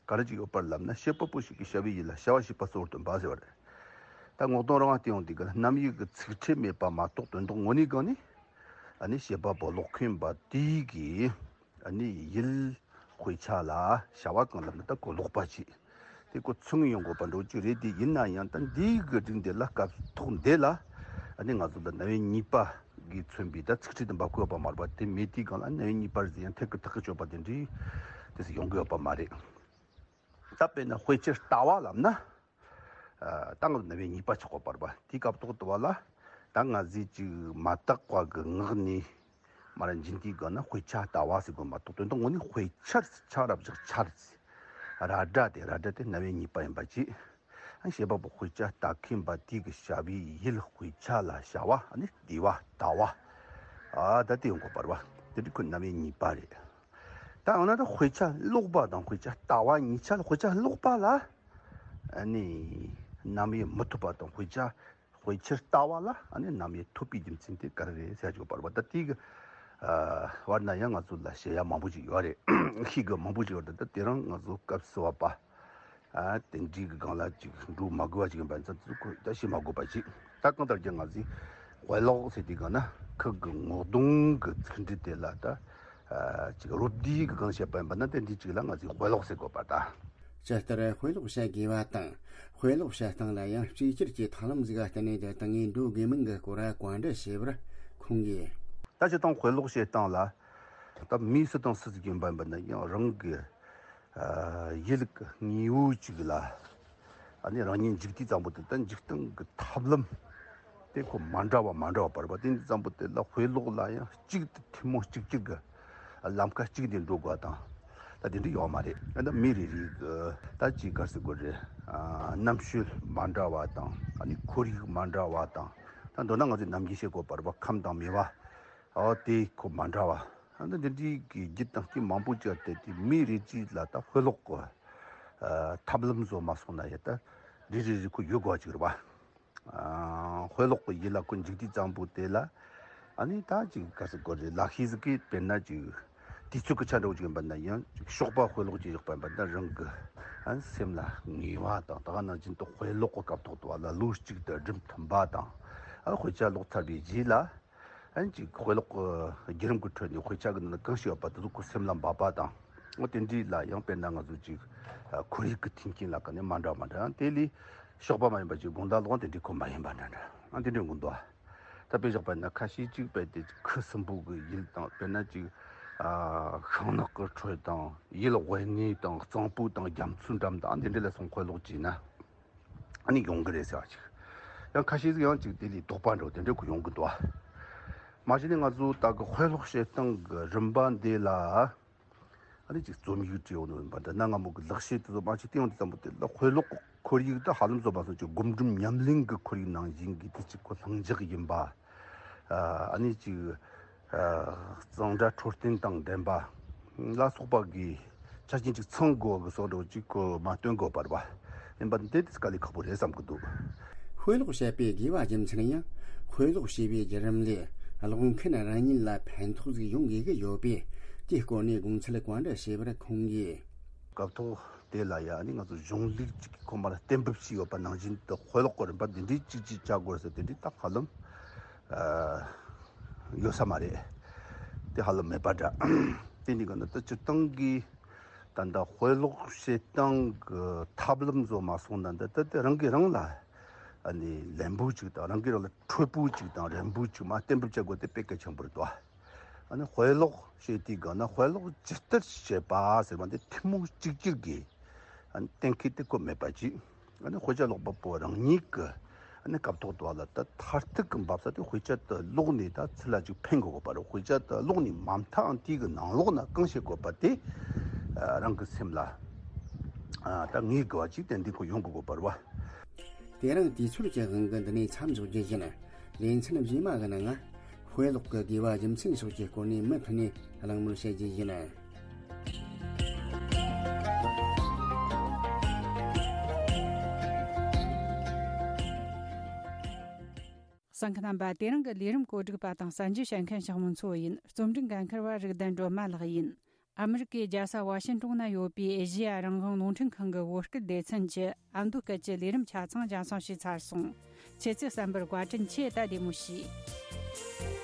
ག་རེ་ཅིག་ཡོད་པ་ལབ་ན། བཤད་པ་པོ་ཞིག་གིས་བྱ་བའི་ཡུལ་ལ་བྱ་བ་བྱེད་པ་གཙོ་བོར་སྟོན་པ་ཟེར་བ་རེད། ད་ངོ་གདོང་རང་བལྟས་ཡོང་དུས་ག་ལ་རྣམ་དབྱེ་གི་ཚིག་ཕྲད་མེད་པ་མ་གཏོགས་དོན་དག་དངོས་གནས་སྒང་ནས་ཨ་ནི་བཤད་པ་པོ་ཀློག་མཁན་པ་དེའི་གི་ཨ་ནི་ཡུལ་དཔེ་ཆ་ལ་བྱ་བ་གང་ལབ་ན་ད་ཁོ་ཀློག་པ་བྱེད། དེ་ཁོ་ཚུགས་ཡོང་དགོས་པ་འདྲ་བོ་ཅིག་རེད། དེ་ཡིན་ན་ཡང་ད་འདིའི་གི་སྒྲིག་འདི་ལ་སྐབས་ཐོག་འདི་ལ་ཨ་ནི་ང་ཚོ་ད་རྣམ་དབྱེ་གཉིས་པ་གིས་མཚོན་པའི་ད་ཚིག་ཕྲད་དེ་འབབ་ཀྱི་ཡོད་པ་མ་རེད་པ། དེ་མེད་དུས་སྒང་ལ་རྣམ་དབྱེ་གཉིས་པ་རེད་ཟེར་ཡང་ཐད་ཀར་ཐག་གིས་ཆོད་པ་དེ་འདྲའི་དེ་ཟིག་ཡོང་གི་ཡོད་པ་མ་རེད། ད་དཔེར་ན་དཔེ་ཆའི་ལྟ་བ་ལབ་ན། ཨ་ད་ང་ཚོ་རྣམ་དབྱེ་གཉིས་པ་ཆགས་ཀྱི་ཡོད་པ་རེད་པ། དེའི་སྐབས་ཐོག་དུ་བ་ལ་ད་ང་ཚོས་ཅིག་མ་དག་པ་གི་ངག་ནས་མར་འབྱིན་དུས་སྒང་ན་དཔེ་ཆ་ལྟ་བ་ཟེར་དགོས་མ་གཏོགས་དོན་དག་དངོས་གནས་དཔེ་ཆར་ཆ་ར་བཞག་ཆར་ཟེར། ར་སྒྲ་དེ་ར་སྒྲ་དེ་རྣམ་དབྱེ་གཉིས་པ་ཡིན་པ་བྱས། ཨ་བཤད་པ་པོ་དཔེ་ཆ་ལྟ་མཁན་པ་དེ་གི་བྱ་བའི་ཡུལ་དཔེ་ཆ་ལ་བྱ་བ་ཨ་ནི་བལྟས་པ་ལྟ་བ། ཨ་ད་དེ་ཡོང་དགོས་པ་རེད་པ། དེ་འདྲ་ཁོ་རྣམ་དབྱེ་གཉིས་པ་རེད། ད་འོ་ན་ད་དཔེ་ཆ་ཀློག་པ་དང་དཔེ་ཆ་ལྟ་བ་གཉིས་ཆ་ལ། དཔེ་ཆ་ཀློག་པ་ལ་ཨ་ནི་རྣམ་དབྱེ་མི་ཐོབ་པ་དང་། དཔེ་ཆ་དཔེ་ཆར་ལྟ་བ་ལ་ཨ་ནི་རྣམ་དབྱེ་ཐོབ་པའི་རྒྱུ་མཚན་དེ་ག་རེ་རེད་ཟེར་ཡ་ཅིག་ཡོད་པ་རེད་པ། ད་དེའི་གི་ཨ་བར་ན་ཡང་ང་ཚོ་ལ་བཤད་ཡ་མང་པོ་ཅིག་ཡོད་རེད། ཤེས་དགོས་མང་པོ་ཅིག་ཡོད་རེད། ད་དེ་རིང་ང་ཚོ་སྐབས་སུ་བབས་པ་ཨ་དེ་འདྲའི་གི་སྒང་ལ་ཅིག་འགྲོ་མ་དགོས་པ་ཅིག་ཡིན་པ་ཚོ་ཁོ་ད་བཤད་མ་དགོས་པ་ཅིག་ད་གང་ལྟར་ཀྱང་ང་ཚོས་དཔེ་ཀློག་ཟེར་དུས་སྒང་ན་ཁོ་གི་ངོ་གདོང་གི་ཚིག་འབྲུ་དེ་ལ་ད་ཨ་ཅིག་རོབ་བསྡུས་གི་སྒང་བཤད་པ་ཡིན་པ་ན་དེ་འདྲའི་ཅིག་ལ་ང་ཚོས་དཔེ་ཀློག་ཟེར་དགོས་པ། ད་ ཇི་ལྟར་དཔེ་ཀློག་བྱ་དགོས་པ་དང་། དཔེ་ཀློག་བྱེད་སྟངས་ལ་ཡང་གཅིག་གྱུར་གྱི་ཐབས་ལམ་ཟིག་ག་བརྟེན་ནས་དེ་དང་ངས་འགྲོ་དགོས་མིན་གྱི་སྐོར་བཀའ་འདྲི་བྱས་པར་ཁོང་གིས། ད་སྤྱིར་བཏང་དཔེ་ཀློག་བྱེད་སྟངས་ལ་ད་མི་སུ་དང་སུ་ཟིག་ཡིན་པ་ཡིན་པ་ན་ཡང་རང་གི་ཨ་ཡིད་ལ་དངོས་པོ་གཅིག་ལ་ཨ་ནི་རང་ཉིད་འཇུག་དུས་ཙམ་པོ་དེ་ད་འཇུག་སྟངས་ཀྱི་ཐབས་ལམ་དེ་ཁོ་མ་འདྲ་བ་མ་འདྲ་བ་བར་བ་དེ་འདི་ཙམ་པོ་དེ་ལ་དཔེ་ཀློག་ལ་ཡང་གཅིག་ཏུ་ཐུན་མོང་གཅིག་གྱུར་གྱི་ལམ་ཁ་གཅིག་ནས་འགྲོ་དགོས་དང་། ད་དེ་འདྲ་ཡོད་མ་རེད། ཨ་ནི་མི་རེ་རེ་གི་ད་ཅིག་ག་རེ་ཟེར་དགོས་རེད། ཨ་རྣམ་དཔྱོད་མ་འདྲ་བ་དང་ཨ་ནི་ཁོར་ཡུག་མ་འདྲ་བ་དང་། ད་མདོར་ན་ང་ཚོས་ནམ་རྒྱུན་བཤད་དགོས་པ་རེད་པ། ཁམས་དང་མེས་པོ་ཨ་དེ་ཁོ་མ་འདྲ་བ། ཨ་ནི་འདི་འདྲའི་གི་རྒྱུ་དང་རྐྱེན་མང་པོ་ཅིག་ཡོད་དེ། དེ་མི་རེ་གཅིག་ལ་ད་དཔེ་ཀློག་གི་ཨ་ཐབས་ལམ་བཟོ་མ་སོང་ན་ཡ་ད་རེ་རེ་རེ་ཁོ་ཡོད་དགོས་ཅིག་རེད་པ། ཨ་དཔེ་ཀློག་གི་ཡིད་ལ་ཁོ་འཇུག་དུས་ཙམ་པོ་དེ་ལ་ཨ་ནི་ད་ཅིག་ག་རེ་ཟེར་དགོས་རེད། ལག་ཤེས་ཟིག་གིས་དཔེར་ན་ཅིག་དུས་ཚོད་ཀྱི་ཆ་འདྲ་བོ་ཅིག་ཡིན་པ་ན་ཡང་ཅིག་ཞོགས་པ་དཔེ་ཀློག་ཅིག་བཞག་པ་ཡིན་པ་ན་རང་གི་ཨ་སེམས་ལ་ངེས་པ་དང་། ད་ག་ནང་བཞིན་དུ་དཔེ་ཀློག་གི་སྐབས་ཐོག་ཏུ་བ་ལ་ལོ་གཅིག་ཏུ་སྒྲུབ་ཐུབ་པ་དང་། ཨ་དཔེ་ཆ་ཀློག་ཚར་བའི་རྗེས་ལ་ཨ་ཅིག་དཔེ་ཀློག་གི་བརྒྱུད་རིམ་གྱི་ཁྲོད་ནས་དཔེ་ཆ་གི་ནང་ན་གང་ཞིག་ཡོད་པ་དེ་ཚོ་ཁོ་སེམས་ལ་འབབ་པ་དང་། འོ་དེ་འདྲའི་ལ་ཡང་དཔེར་ན་ང་ཚོ་ཅིག་ཨ་ཁོར་ཡུག་གི་མཐུན་རྐྱེན་ལ་ཀ་ནས་མ་འདྲ་མ་འདྲ། དེ་ལས་ཞོགས་པ་མ་ཡིན་པ་ཅིག་དགོང་དག་ལོག་དེ་འདྲའི་ཁོ་མ་ཡིན་པ་འདྲ་འདྲ། ཨ་དེ་འདྲའི་གོ་འདུག་ད་དཔེ་བཞག་པ་ཡིན་ན་ཁ་ཤས་ཅིག་དཔེ་དེ་ཁུ་སིམ་པོ་གི་ཡུལ་དང་། དཔེར་ན་ཅིག་ཨ་ཤིང་ནགས་ཀྱི་ཁྲོད་དང་། ཡུལ་དབེན་གནས་དང་། གཙང་པོ་དང་རྒྱ་མཚོའི་འགྲམ་དང་། ཨ་འདི་འདྲ་ལ་སོང་དཔེ་ཀློག་བྱས་ན་ཨ་ནི་ཡོང་གི་རེད་ཟེར་བ་ཅིག་ཡང་ཁ་ཤས་ཅིག་ཡང་ཅིག་དེ་ལས་དོགས་པ་འདྲ་བོ་དེ་འདྲ་ཁོ་ཡོང་གི་འདུག་མ་གཞི་ནས་ང་ཚོ་ད་གི་དཔེ་ཀློག་བྱེད་སྟངས་ཀྱི་རིམ་པ་འདི་ལ་ཨ་ནི་ཅིག་རྩོམ་ཡིག་བྲིས་ཡོང་ནོ་ཡིན་པ་འདྲ། གནའ་སྔ་མོ་གི་ལག་ཤེས་དེ་ཚོ་མ་ཅིག་བསྟན་ཡོང་དུས་ཙམ་པོ་དེ་ལ་དཔེ་ཀློག་གི་ཁོར་ཡུག་ད་ཧ་ལམ་བཟོ་མ་སོང་། ཅིག་སྒོམ་སྒྲུབ་ཉམས་ལེན་གྱི་ཁོར་ཡུག་ནང་བཞིན་གྱི་དེ་ཅིག་ཁོ་ལྷིང་འཇགས་ཡིན་པ། ཨ་ནི་ཅིག་ཨ་གཙང་སྦྲ་འཕྲོད་བསྟེན་དང་ལྡན་པ་ལ་སོགས་པ་གི་ཆ་རྐྱེན་ཅིག་ཚང་དགོས་གི་བཟོ་འདྲ་ཅིག་ཁོ་མ་སྟོན་དགོས་པ་རེད་པ། ཡིན་པ་འདི་དེ་དཀའ་ལས་ཁག་པོ་རེད་བསམ་གི་འདུག་དཔེ་ཀློག་བྱེད་པའི་དགོས་པ་རྒྱུ་མཚན་ཡང་། དཔེ་ཀློག་བྱེད་པའི་བརྒྱུད་རིམ་ལས་ཀློག་མཁན་རང་ཉིད་ལ་ཕན་ཐོགས་ཟིག་ཡོང་དགོས་ཀྱི་ཡོད་པས། དེའི་སྐོར་ནས་དགོངས་ཚུལ་བཀའ་འདྲི་བྱས་པར་ཁོང་གིས། སྐབས་ཐོག་དེ་ལ་ཡ་ནི་ང་ཚོ་གཞུང་ལུགས་ཅིག་གི་ཁོ་མར་གཏན་འབེབས་བྱས་ཡོད་པ་ནང་བཞིན་དུ་དཔེ་ཀློག་གི་རིམ་པ་འདི་འདྲའི་ཅིག་ཅིག་བྱ་དགོས་ཟེར་དེ་འདྲའི་ད་ཧ་ལམ་ཨ་ཡོད་ས་མ་རེད། དེ་ཧ་ལམ་མེད་པ་འདྲ། དེ་འདྲའི་ག་ན་ད་སྤྱིར་བཏང་གི་ད་ལྟ་དཔེ་ཀློག་བྱེད་སྟངས་ཀྱི་ཐབས་ལམ་བཟོ་མ་སོང་ན། འདི་ད་དེ་རང་གིས་རང་ལ་ཨ་ནི་ལན་པོ་ཅིག་དང་། རང་གིས་རང་ལ་འཕྲོད་པོ་ཅིག་དང་རན་པོ་ཅིག་མར་གཏན་འབེབས་བྱ་དགོས་དེ་དཔེ་གལ་ཆེན་པོ་རེད་དོ། ཨ་ནི་དཔེ་ཀློག་བྱེད་དུས་སྒང་ན་དཔེ་ཀློག་ཇི་ལྟར་བྱེད་པ་ཟེར་བ་འདི་ཐུན་མོང་གཅིག་གྱུར་གྱི་ཨ་ནི་གཏན་འཁེལ་དེ་ཁོ་མེད་པ་ཅིག་ཨ་ནི་དཔེ་ཆ་ཀློག་པ་པོ་རང་ཉིད་ཀྱི་ཨ་ནི་སྐབས་ཐོག་ཏུ་བ་ལ་ད་མཐར་ཐུག་གི་འབབ་ས་དེ་དཔེ་ཆ་དེ་ཀློག་ནས་ད་ཚུར་ལ་ཅིག་ཕན་དགོས་པ་རེད། དཔེ་ཆ་དེ་ཀློག་ནས་མ་མཐའ་ཨང་དེ་གི་ནང་ལོགས་ན་གང་བྱེད་དགོས་པ་དེ་ཨ་རང་གི་སེམས་ལ་ཨ་ད་ངེས་དགོས་པ་ཅིག་ཏན་ཏན་ཁོ་ཡོང་དགོས་དགོས་པ་རེད་བ། དེ་རིང་དུས་ཚོད་ཀྱི་དབང་གིས་འདི་ནས་མཚམས་འཇོག་རྒྱུ་ཡིན། ལེ་ཚན་རྗེས་མ་གི་ནང་ང་དཔེ་ཀློག་གི་དགོས་པ་རྒྱུ་མཚན་སོགས་ཀྱི་སྐོར་ནས་མུ་མཐུད་ནས་གླེང་མོལ་བྱེད་རྒྱུ་ཡིན། གསན་མཁན་རྣམ་པ། དེ་རིང་གི་ལས་རིམ་གོ་སྒྲིག་པ་དང་གསན་རྒྱུ་བྱེད་མཁན་ཞང་མུན་མཚོ་ཡིན། རྩོམ་སྒྲིག་འགན་འཁུར་བ་རིག་ལྡན་སྒྲོལ་མ་ལགས་ཡིན། ཨ་མི་རི་ཀའི་རྒྱལ་ས་ཝ་ཤིན་ཏོན་ན་ཡོད་པའི་ཨེ་ཤེ་ཡ་རང་དབང་རླུང་འཕྲིན་ཁང་གི་བོད་སྐད་སྡེ་ཚན་གྱི་ཨ་མདོ་སྐད་ཀྱི་ལས་རིམ་ཆ་ཚང་རྒྱང་སྲིང་ཞུས་ཚར་སོང་། ཁྱེད་ཚོས་གསན་པར་བཀའ་དྲིན་ཆེ། ད་བདེ་མོ་བྱོས།